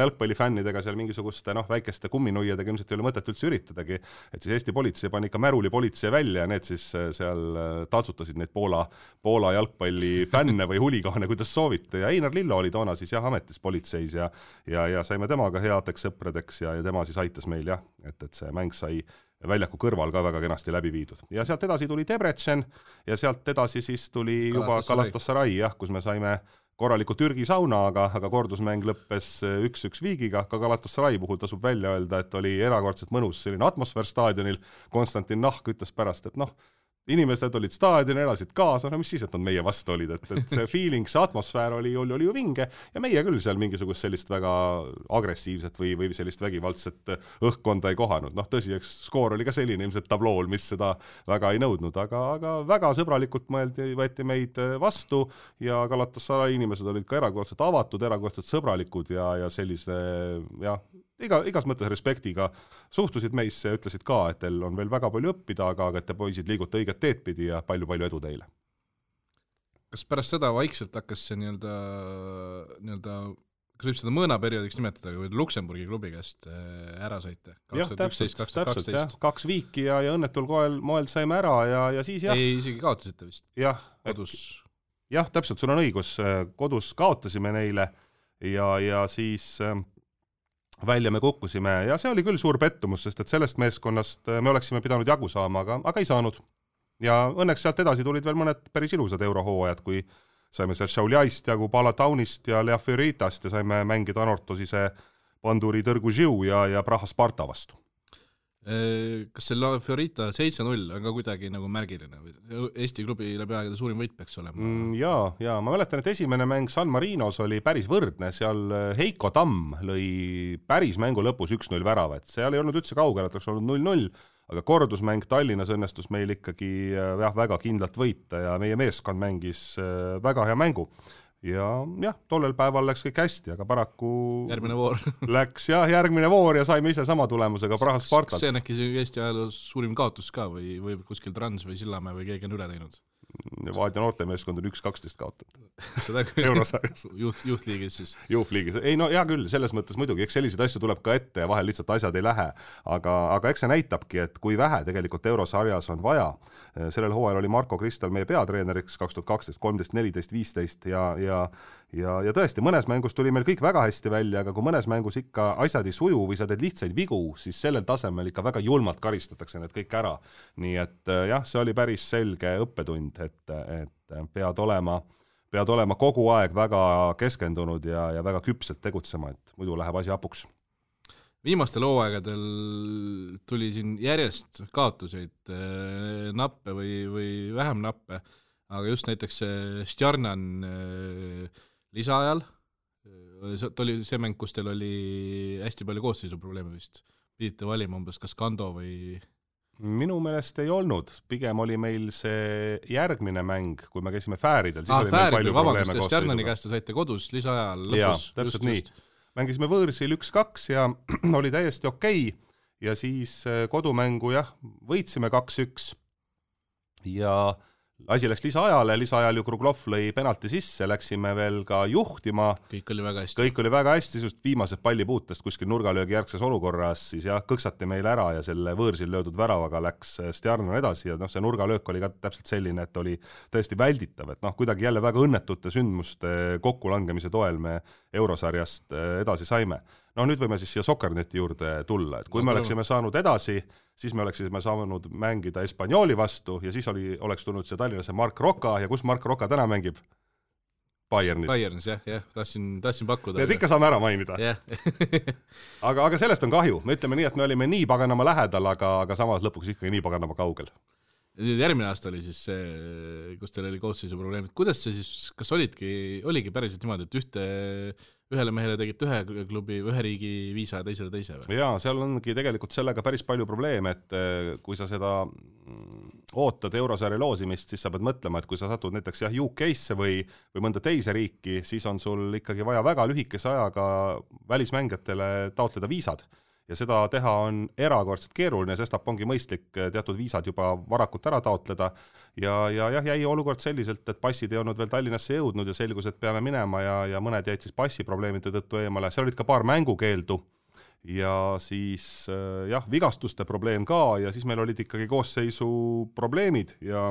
jalgpallifännidega seal mingisuguste väikeste kumminuiadega ilmselt ei ole mõtet üldse üritadagi, et siis Eesti politsei pani ikka märuli politsei välja ja need siis seal taltsutasid neid Poola jalgpallifänne või huligaane, kuidas soovite, ja Einar Lillo oli toona siis ametis politseis ja saime temaga headeks sõpradeks ja tema siis aitas meil et see mäng sai väljaku kõrval ka väga kenasti läbi viidud. Ja sealt edasi tuli Debrecen ja sealt edasi siis tuli juba Galatasaray, kus me saime korraliku Türgi sauna, aga kordusmäng lõppes 1-1 viigiga. Ka Galatasaray puhul tasub välja öelda, et oli erakordselt mõnus selline atmosfäär staadionil. Konstantin Nahk ütles pärast, et inimesed olid staadioni, elasid kaasa, mis siis, et nad meie vastu olid, et see feeling, see atmosfäär oli ju vinge ja meie küll seal mingisugust sellist väga agressiivset või sellist vägivaldset õhkkonda ei kohanud. Tõsi, eks skoor oli ka selline ilmselt tablool, mis seda väga ei nõudnud, aga väga sõbralikult võeti meid vastu ja Galatasaray inimesed olid ka erakordselt avatud, erakordselt sõbralikud ja sellise, igas mõttes respektiga suhtusid meisse ja ütlesid ka, et teil on veel väga palju õppida, aga et te poisid liigute õiget teed pidi ja palju edu teile. Kas pärast seda vaikselt hakkas see nii-öelda, kas võib seda mõõnaperioodiks nimetada, kui Luksemburgi klubi käest ära saite? 2011-2012. 2 viiki ja õnnetul moel saime ära ja siis Ei, isegi kaotasite vist. Kodus. Täpselt, sul on õigus. Kodus kaotasime neile ja siis välja me kukkusime ja see oli küll suur pettumus, sest et sellest meeskonnast me oleksime pidanud jagu saama, aga ei saanud. Ja õnneks sealt edasi tulid veel mõned päris ilusad eurohooajad, kui saime seal Šauliaist jagu Palataunist ja Lea Fioritast ja saime mängida Anortosise Panduri Tõrgu Žiu ja Praha Sparta vastu. Kas see La Fiorita 7-0 on ka kuidagi nagu märgiline? Eesti klubi läbi aegade suurim võit peaks olema? Ja ma mäletan, et esimene mäng San Marinos oli päris võrdne, seal Heiko Tamm lõi päris mängu lõpus 1-0 värava, et seal ei olnud üldse kaugel, et oleks olnud 0-0, aga kordusmäng Tallinnas õnnestus meil ikkagi väga kindlalt võita ja meie meeskond mängis väga hea mängu. Ja tollel päeval läks kõik hästi, aga paraku järgmine voor läks järgmine voor ja saime ise sama tulemusega Praha Spartalt. Kas see on äkki Eesti ajaloos suurim kaotus ka või kuskil Trans või Sillamäe või keegi on üle teinud? Vaadja noortemeeskond on 1-12 kaotatud. Seda küll. Eurosarjas. Youth-liigis siis. Youth-liigis. Ei hea küll, selles mõttes muidugi, eks selliseid asju tuleb ka ette ja vahel lihtsalt asjad ei lähe. Aga eks see näitabki, et kui vähe tegelikult Eurosarjas on vaja. Sellel hooajal oli Marko Kristal meie peatreeneriks 2012, 13, 14, 15 ja tõesti, mõnes mängus tuli meil kõik väga hästi välja, aga kui mõnes mängus ikka asjad ei suju või sa teed lihtsaid vigu, siis sellel tasemel ikka väga julmalt karistatakse need kõik ära. Nii et see oli päris selge õppetund, et pead olema kogu aeg väga keskendunud ja väga küpselt tegutsema, et muidu läheb asi hapuks. Viimastel hooaegadel tuli siin järjest kaotuseid, nappe või vähem nappe, aga just näiteks Stjarnan lisaajal, oli see mäng, kus teil oli hästi palju koosseisuprobleeme vist, pidite valima umbes kas Kando või... Minu meelest ei olnud, pigem oli meil see järgmine mäng, kui me käisime Fääridel, siis oli meil palju probleeme koosseisuga. Stjarnani käest saite kodus lisaajal lõpus. Täpselt nii. Mängisime võõrsil 1-2 ja oli täiesti okei ja siis kodumängu võitsime 2-1 ja asi läks lisaajal ju Kruglov lõi penalti sisse, läksime veel ka juhtima. Kõik oli väga hästi, just viimased pallipuutest kuskil nurgalöögi järgses olukorras, siis kõksati meil ära ja selle võõrsil löödud väravaga läks Stjarnan edasi ja see nurgalöök oli ka täpselt selline, et oli tõesti välditav, et kuidagi jälle väga õnnetute sündmuste kokkulangemise toel me Eurosarjast edasi saime. Nüüd võime siis siia Sokkerneti juurde tulla, et kui me oleksime saanud edasi, siis me oleksime saanud mängida Espanyoli vastu ja siis oleks tulnud see Tallinnasse Mark Roka ja kus Mark Roka täna mängib? Bayernis, tahtsin pakkuda. Need ikka saame ära mainida. aga sellest on kahju, me ütleme nii, et me olime nii paganama lähedal, aga samas lõpuks ikkagi nii paganama kaugel. Järgmine aasta oli siis see, kus teil oli koosseisu probleemid. Kuidas see siis, kas oligi päriselt niimoodi, et ühele mehele tegite ühe klubi, ühe riigi viisa ja teisele teise või? Jaa, seal ongi tegelikult sellega päris palju probleeme, et kui sa seda ootad Eurosarja loosimist, siis sa pead mõtlema, et kui sa satud näiteks UK-sse või mõnda teise riiki, siis on sul ikkagi vaja väga lühikese ajaga välismängijatele taotleda viisad. ja seda teha on erakordselt keeruline, sestap ongi mõistlik teatud viisad juba varakult ära taotleda ja jäi olukord selliselt, et passid ei olnud veel Tallinnasse jõudnud ja selgus, et peame minema ja mõned jäid siis passiprobleemide tõttu eemale, seal olid ka paar mängukeeldu ja siis vigastuste probleem ka ja siis meil olid ikkagi koosseisu probleemid ja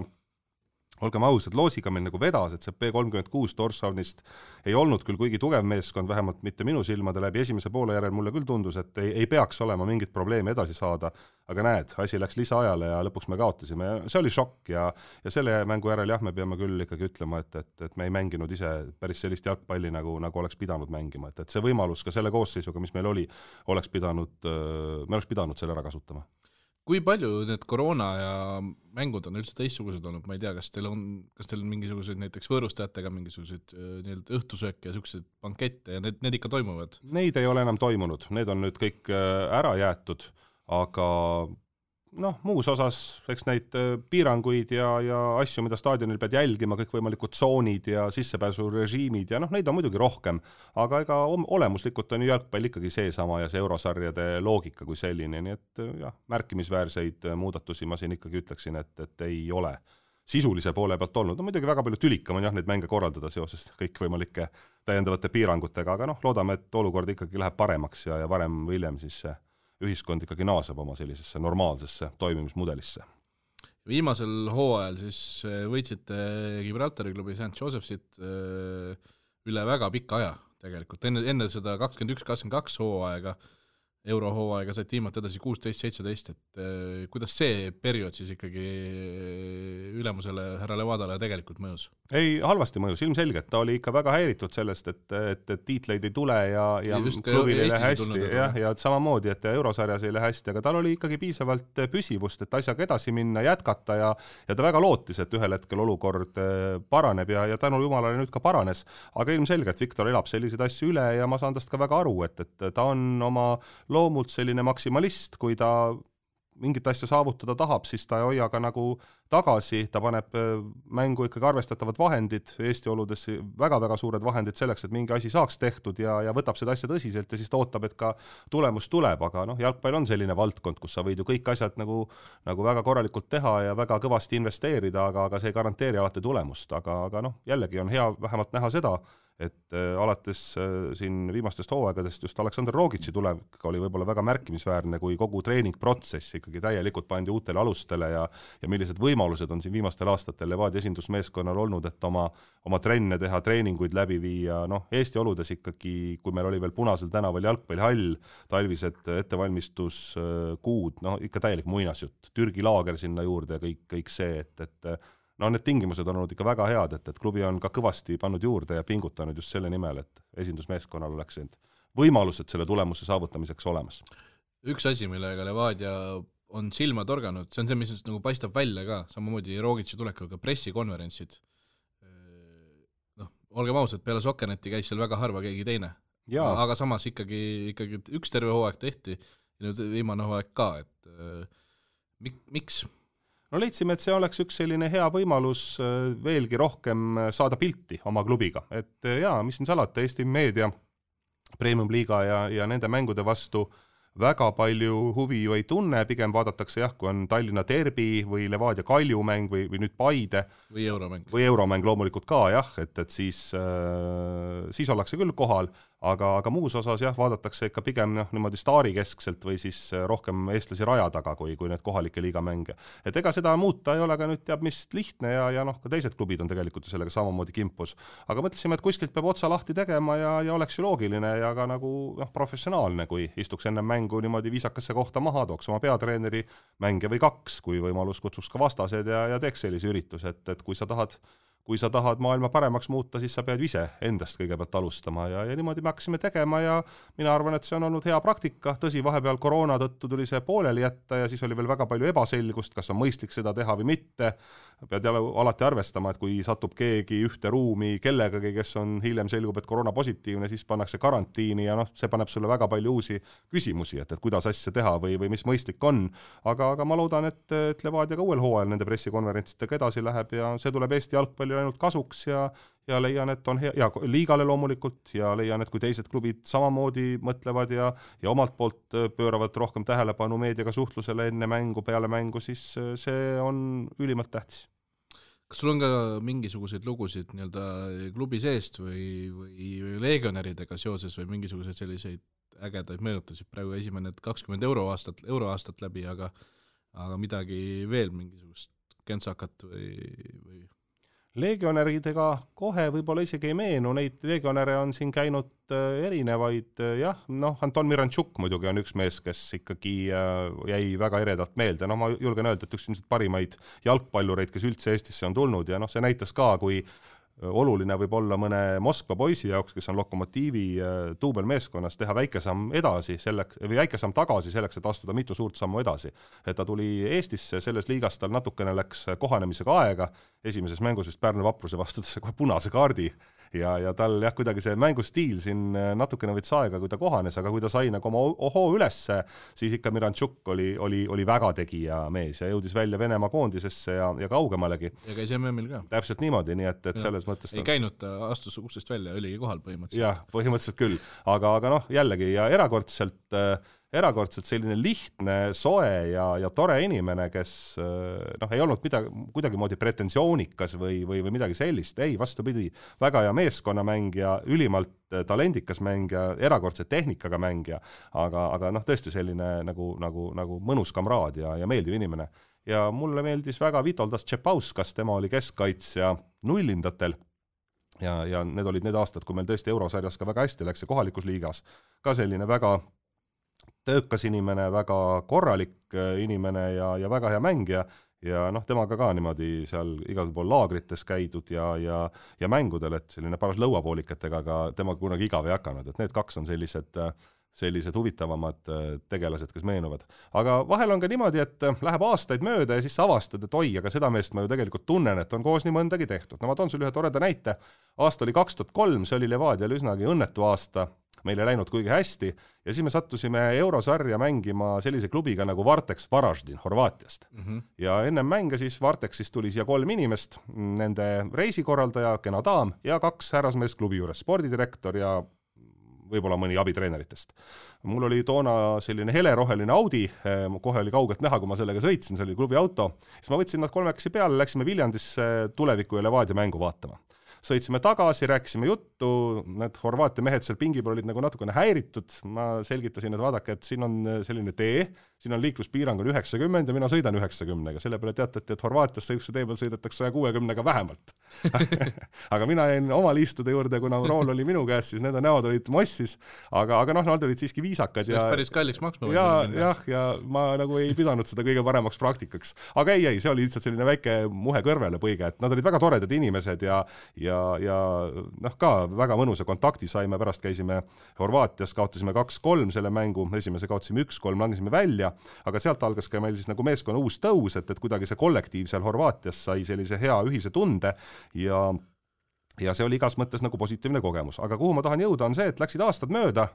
olgem ausad, loosiga meil nagu vedas, et see P36 Torshavnist ei olnud küll kuigi tugev meeskond, vähemalt mitte minu silmade läbi, esimese poole järel mulle küll tundus, et ei peaks olema mingit probleemi edasi saada, aga näed, asi läks lisaajale ja lõpuks me kaotasime ja see oli šokk ja selle mängu järel me peame küll ikkagi ütlema, et me ei mänginud ise päris sellist jalgpalli, nagu oleks pidanud mängima, et see võimalus ka selle koosseisuga, mis meil oli, me oleks pidanud selle ära kasutama. Kui palju need koroona ja mängud on üldse teistsugused olnud, ma ei tea, kas teil on mingisuguseid näiteks võõrustajatega mingisuguseid õhtusööke ja selliseid bankette ja need ikka toimuvad? Neid ei ole enam toimunud, need on nüüd kõik ära jäetud, aga muus osas eks neid piiranguid ja asju, mida staadionil pead jälgima, kõikvõimalikud tsoonid ja sissepääsurežiimid ja neid on muidugi rohkem, aga ega olemuslikult on ju jalgpall ikkagi seesama ja see eurosarjade loogika kui selline, nii et märkimisväärseid muudatusi ma siin ikkagi ütleksin, et ei ole sisulise poole pealt olnud. Muidugi väga palju tülikam on neid mänge korraldada seoses kõikvõimalike täiendavate piirangutega, aga loodame, et olukord ikkagi läheb paremaks ja varem või hiljem siis see ühiskond ikkagi naaseb oma sellisesse normaalsesse toimimismudelisse. Viimasel hooajal siis võitsite Gibraltari klubi St. Josephsit üle väga pika aja tegelikult. Enne seda 21-22 hooaega, eurohooaega said tiimad edasi 16-17, et kuidas see periood siis ikkagi ülemusele härra Levadale tegelikult mõjus? Ei, halvasti mõjus, ilmselgelt. Ta oli ikka väga häiritud sellest, et tiitleid ei tule ja klubil ei lähe hästi ja samamoodi, et eurosarjas ei lähe hästi, aga tal oli ikkagi piisavalt püsivust, et asjaga edasi minna, jätkata ja ta väga lootis, et ühel hetkel olukord paraneb ja tänu jumalale nüüd ka paranes, aga ilmselgelt Viktor elab selliseid asju üle ja ma saan tast ka väga aru, et ta on oma loomult selline maksimalist, kui ta mingit asja saavutada tahab, siis ta ei hoia ka nagu tagasi, ta paneb mängu ikkagi arvestatavad vahendid, Eesti oludes väga-väga suured vahendid selleks, et mingi asi saaks tehtud ja võtab seda asja tõsiselt ja siis ta ootab, et ka tulemus tuleb, aga jalgpall on selline valdkond, kus sa võid ju kõik asjad nagu väga korralikult teha ja väga kõvasti investeerida, aga see ei garanteeri alati tulemust, aga jällegi on hea vähemalt näha seda, et alates siin viimastest hooaegadest just Aleksandr Rogitši tulevik oli võib-olla väga märkimisväärne, kui kogu treeningprotsess ikkagi täielikult pandi uutele alustele ja millised võimalused on siin viimastel aastatel Levadia esindusmeeskonnal olnud, et oma trenne teha, treeninguid läbi viia, Eesti oludes ikkagi, kui meil oli veel Punasel tänaval jalgpallihall, talvised ettevalmistuskuud, ikka täielik muinasjutt, Türgi laager sinna juurde ja kõik see, et need tingimused on olnud ikka väga head, et klubi on ka kõvasti pannud juurde ja pingutanud just selle nimel, et esindusmeeskonnal oleks võimalused selle tulemuse saavutamiseks olemas. Üks asi, millega Levadia on silma torganud, see on see, mis nagu paistab välja ka, samamoodi Rogitši tulekuga pressikonverentsid. Olgem ausad, peale Sokkerneti käis seal väga harva keegi teine. Aga samas ikkagi üks terve hooaeg tehti ja nüüd viimane hooaeg ka, et miks? Leidsime, et see oleks üks selline hea võimalus veelgi rohkem saada pilti oma klubiga. Et mis siin salata, Eesti meedia, Premium Liiga ja nende mängude vastu väga palju huvi ju ei tunne, pigem vaadatakse kui on Tallinna derbi või Levadia Kalju mäng või nüüd Paide. Või euromäng. Või euromäng loomulikult ka, et siis ollakse küll kohal, aga muus osas vaadatakse ikka pigem niimoodi staarikeskselt või siis rohkem eestlasi raja taga kui need kohalike liigamänge. Et ega seda muuta ei ole ka nüüd teab mis lihtne ja ka teised klubid on tegelikult sellega samamoodi kimpus. Aga mõtlesime, et kuskilt peab otsa lahti tegema ja oleks ju loogiline ja ka nagu professionaalne, kui istuks enne mängu niimoodi viisakasse kohta maha, tooks oma peatreeneri mänge või 2, kui võimalus kutsuks ka vastased ja teeks sellise üritus, et kui sa tahad maailma paremaks muuta, siis sa pead ise endast kõigepealt alustama ja niimoodi me hakkasime tegema ja mina arvan, et see on olnud hea praktika. Tõsi, vahepeal koroona tõttu tuli see pooleli jätta ja siis oli veel väga palju ebaselgust, kas on mõistlik seda teha või mitte. Pead alati arvestama, et kui satub keegi ühte ruumi kellegagi, kes on hiljem selgub, et koroona positiivne, siis pannakse karantiini ja see paneb sulle väga palju uusi küsimusi, et kuidas asja teha või mis mõistlik on. Aga ma loodan, et Levadia ka uuel hooajal nende pressikonverentsidega edasi läheb ja see tuleb Eesti jalgpalli jalgpallile ainult kasuks ja leian, et on hea, ja liigale loomulikult, ja leian, et kui teised klubid samamoodi mõtlevad ja omalt poolt pööravad rohkem tähelepanu meediaga suhtlusele enne mängu, peale mängu, siis see on ülimalt tähtis. Kas sul on ka mingisuguseid lugusid nii-öelda klubi seest või legionäridega seoses või mingisuguseid selliseid ägedaid meenutasid? Praegu esimene 20 euroaastat läbi, aga midagi veel, mingisugust kentsakat või? Legionäridega kohe võib-olla isegi ei meenu, neid legionäre on siin käinud erinevaid, jah, Anton Miranchuk muidugi on üks mees, kes ikkagi jäi väga eredalt meelde, ma julgen öelda, et üks ilmselt parimaid jalgpallureid, kes üldse Eestisse on tulnud ja see näitas ka, kui oluline võib olla mõne Moskva poisi jaoks, kes on Lokomotiivi duubelmeeskonnas, teha väike samm edasi või väike samm tagasi selleks, et astuda mitu suurt sammu edasi. Et ta tuli Eestisse, selles liigas tal natukene läks kohanemisega aega, esimeses mängus vist Pärnu Vapruse vastu kohe punase kaardi ja tal kuidagi see mängustiil siin natukene võttis aega, kui ta kohanes, aga kui ta sai nagu oma ohoo ülesse, siis ikka Miranchuk oli väga tegija mees ja jõudis välja Venemaa koondisesse ja kaugemalegi. Ja käis MM-il ka. Täpselt niimoodi, nii et selles mõttes ei käinud, ta astus uksest välja, oligi kohal põhimõtteliselt. Jah, põhimõtteliselt küll, aga jällegi ja erakordselt selline lihtne, soe ja tore inimene, kes ei olnud kuidagi moodi pretensioonikas või midagi sellist, ei, vastupidi, väga hea meeskonnamängija, ülimalt talendikas mängija, erakordse tehnikaga mängija, aga tõesti selline nagu mõnus kamraad ja meeldiv inimene. Ja mulle meeldis väga Vitoldas Tšepauskas, tema oli keskkaitsja nullindatel ja need olid need aastad, kui meil tõesti eurosarjas ka väga hästi läks ja kohalikus liigas. Ka selline väga töökas inimene, väga korralik inimene ja väga hea mängija ja temaga ka niimoodi seal igal pool laagrites käidud ja mängudel, et selline paras lõuapoolikatega, aga temaga kunagi igav ei hakanud, et need kaks on sellised huvitavamad tegelased, kes meenuvad. Aga vahel on ka niimoodi, et läheb aastaid mööda ja siis sa avastad, et oi, aga seda meest ma ju tegelikult tunnen, et on koos nii mõndagi tehtud. Ma toon sulle ühe toreda näite. Aasta oli 2003, see oli Levadial üsnagi õnnetu aasta, meil ei läinud kuigi hästi ja siis me sattusime eurosarja mängima sellise klubiga nagu Varteks Varaždin Horvaatiast. Ja enne mänge siis Varteksist tuli siia 3 inimest, nende reisikorraldaja, kena daam ja 2 härrasmeest klubi juures, spordidirektor ja võib-olla mõni abitreeneritest. Mul oli toona selline heleroheline Audi, kohe oli kaugelt näha, kui ma sellega sõitsin, see oli klubi auto, siis ma võtsin nad 3 peale, läksime Viljandisse Tuleviku ja Levadia mängu vaatama. Sõitsime tagasi, rääkisime juttu, need Horvaatia mehed seal pingi peal olid nagu natukene häiritud, ma selgitasin, et vaadake, et siin on selline tee, siin on liikluspiirang on 90 ja mina sõidan 90-ga, selle peale teatati, et Horvaatiasse üks tee peal sõidetakse 160-ga vähemalt. Aga mina jäin oma liistude juurde, kuna rool oli minu käes, siis nende näod olid mossis, aga nad olid siiski viisakad. See päris kalliks maksma. Ja ma nagu ei pidanud seda kõige paremaks praktikaks. Aga ei, see oli lihtsalt selline väike muhe kõrvele põige, et nad olid väga toredad inimesed ja ka väga mõnusa kontakti saime, pärast käisime Horvaatias, kaotasime 2-3 selle mängu, esimese kaotasime 1-3, langesime välja, aga sealt algas ka meil siis nagu meeskonna uus tõus, et kuidagi see kollektiiv seal Horvaatias sai sellise hea ühise tunde ja see oli igas mõttes nagu positiivne kogemus. Aga kuhu ma tahan jõuda on see, et läksid aastad mööda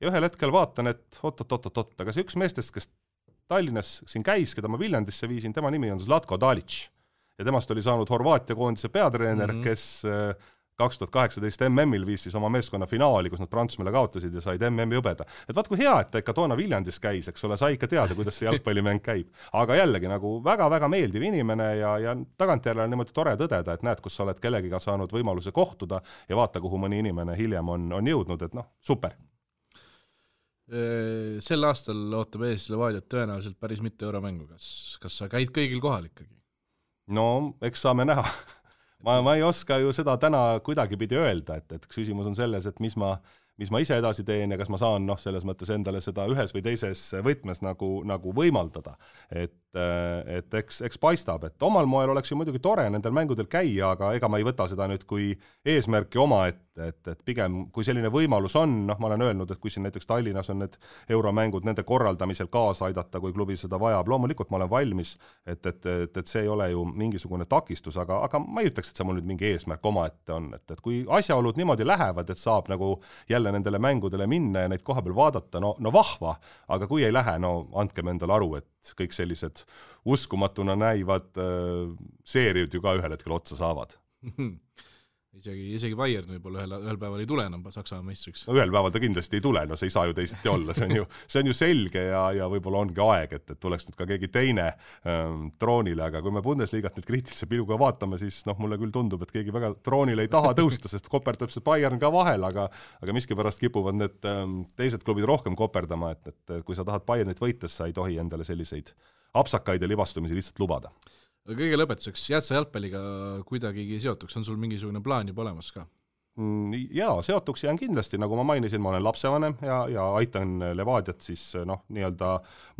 ja ühel hetkel vaatan, et oot, aga see üks meestest, kes Tallinnas siin käis, keda ma Viljandisse viisin, tema nimi on Zlatko Dalic. Ja temast oli saanud Horvaatia koondise peatreener, kes 2018 MM-il viis siis oma meeskonna finaali, kus nad Prantsusmaale kaotasid ja said MM-i hõbeda. Et vaat kui hea, et ta ikka toona Viljandis käis, eks ole, sai ikka teada, kuidas see jalgpallimäng käib. Aga jällegi nagu väga-väga meeldiv inimene ja tagantjärele on niimoodi tore tõdeda, et näed, kus sa oled kellegiga saanud võimaluse kohtuda ja vaata, kuhu mõni inimene hiljem on jõudnud, et super. Sel aastal ootab ees Levadiat tõenäoliselt päris mitu euromängu. Kas sa käid kõigil kohal ikkagi? No, eks saame näha. Ma ei oska ju seda täna kuidagi pidi öelda, et küsimus on selles, et mis ma ise edasi teen ja kas ma saan selles mõttes endale seda ühes või teises võtmes nagu võimaldada. Et eks paistab, et omal moel oleks ju muidugi tore nendel mängudel käia, aga ega ma ei võta seda nüüd kui eesmärki oma, et pigem kui selline võimalus on, ma olen öelnud, et kui siin näiteks Tallinnas on need euromängud nende korraldamisel kaasa aidata, kui klubi seda vajab, loomulikult ma olen valmis, et see ei ole ju mingisugune takistus, aga ma ei ütleks, et see mul nüüd mingi eesmärk oma ette on, et kui asjaolud niimoodi lähevad, et saab nagu jälle nendele mängudele minna ja neid koha peal vaadata, no vahva, aga kui ei lähe, andkem endale aru, et kõik sellised uskumatuna näivad seeriud ju ka ühel hetkel otsa saavad. isegi Bayern võib-olla ühel päeval ei tule enam Saksamaa meistriks. No ühel päeval ta kindlasti ei tule, no see ei saa ju teisiti olla, see on ju selge ja võib-olla ongi aeg, et tuleks nüüd ka keegi teine troonile, aga kui me Bundesliigat nüüd kriitilise pilguga vaatame, siis mulle küll tundub, et keegi väga troonile ei taha tõusta, sest koperdab see Bayern ka vahel, aga miskipärast kipuvad need teised klubid rohkem koperdama, et kui sa tahad Bayernit võites, sa ei tohi endale selliseid apsakaid ja libastumisi lihtsalt lubada. Kõige lõpetuseks, jääd sa jalgpalliga kuidagigi seotuks, on sul mingisugune plaan juba olemas ka? Jaa, seotuks jään kindlasti, nagu ma mainisin, ma olen lapsevanem ja aitan Levadiat siis nii-öelda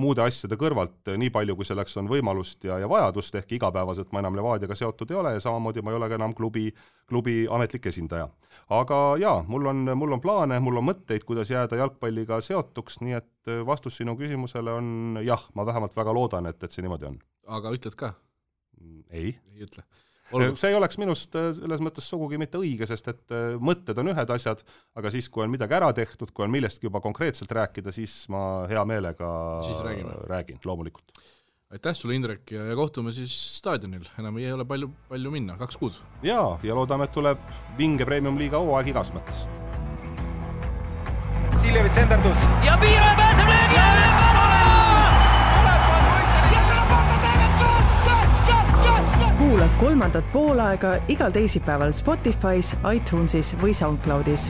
muude asjade kõrvalt nii palju, kui selleks on võimalust ja vajadust, ehk igapäevaselt ma enam Levadiaga seotud ei ole ja samamoodi ma ei ole ka enam klubi ametlik esindaja. Aga jaa, mul on plaane, mul on mõtteid, kuidas jääda jalgpalliga seotuks, nii et vastus sinu küsimusele on jah, ma vähemalt väga loodan, et see niimoodi on. Aga ütled ka? Ei ütle. See ei oleks minust selles mõttes sugugi mitte õige, sest et mõtted on ühed asjad, aga siis, kui on midagi ära tehtud, kui on millestki juba konkreetselt rääkida, siis ma hea meelega räägin, loomulikult. Aitäh sulle, Indrek, ja kohtume siis staadionil. Enam ei ole palju minna, 2 kuud. Ja loodame, et tuleb vinge Premium-liiga hooaeg igas mõttes. Siljevits endardus. Ja Piiro pääseb löögi alla! Kuula 3. poolaega igal teisipäeval Spotify's, iTunesis või SoundCloudis.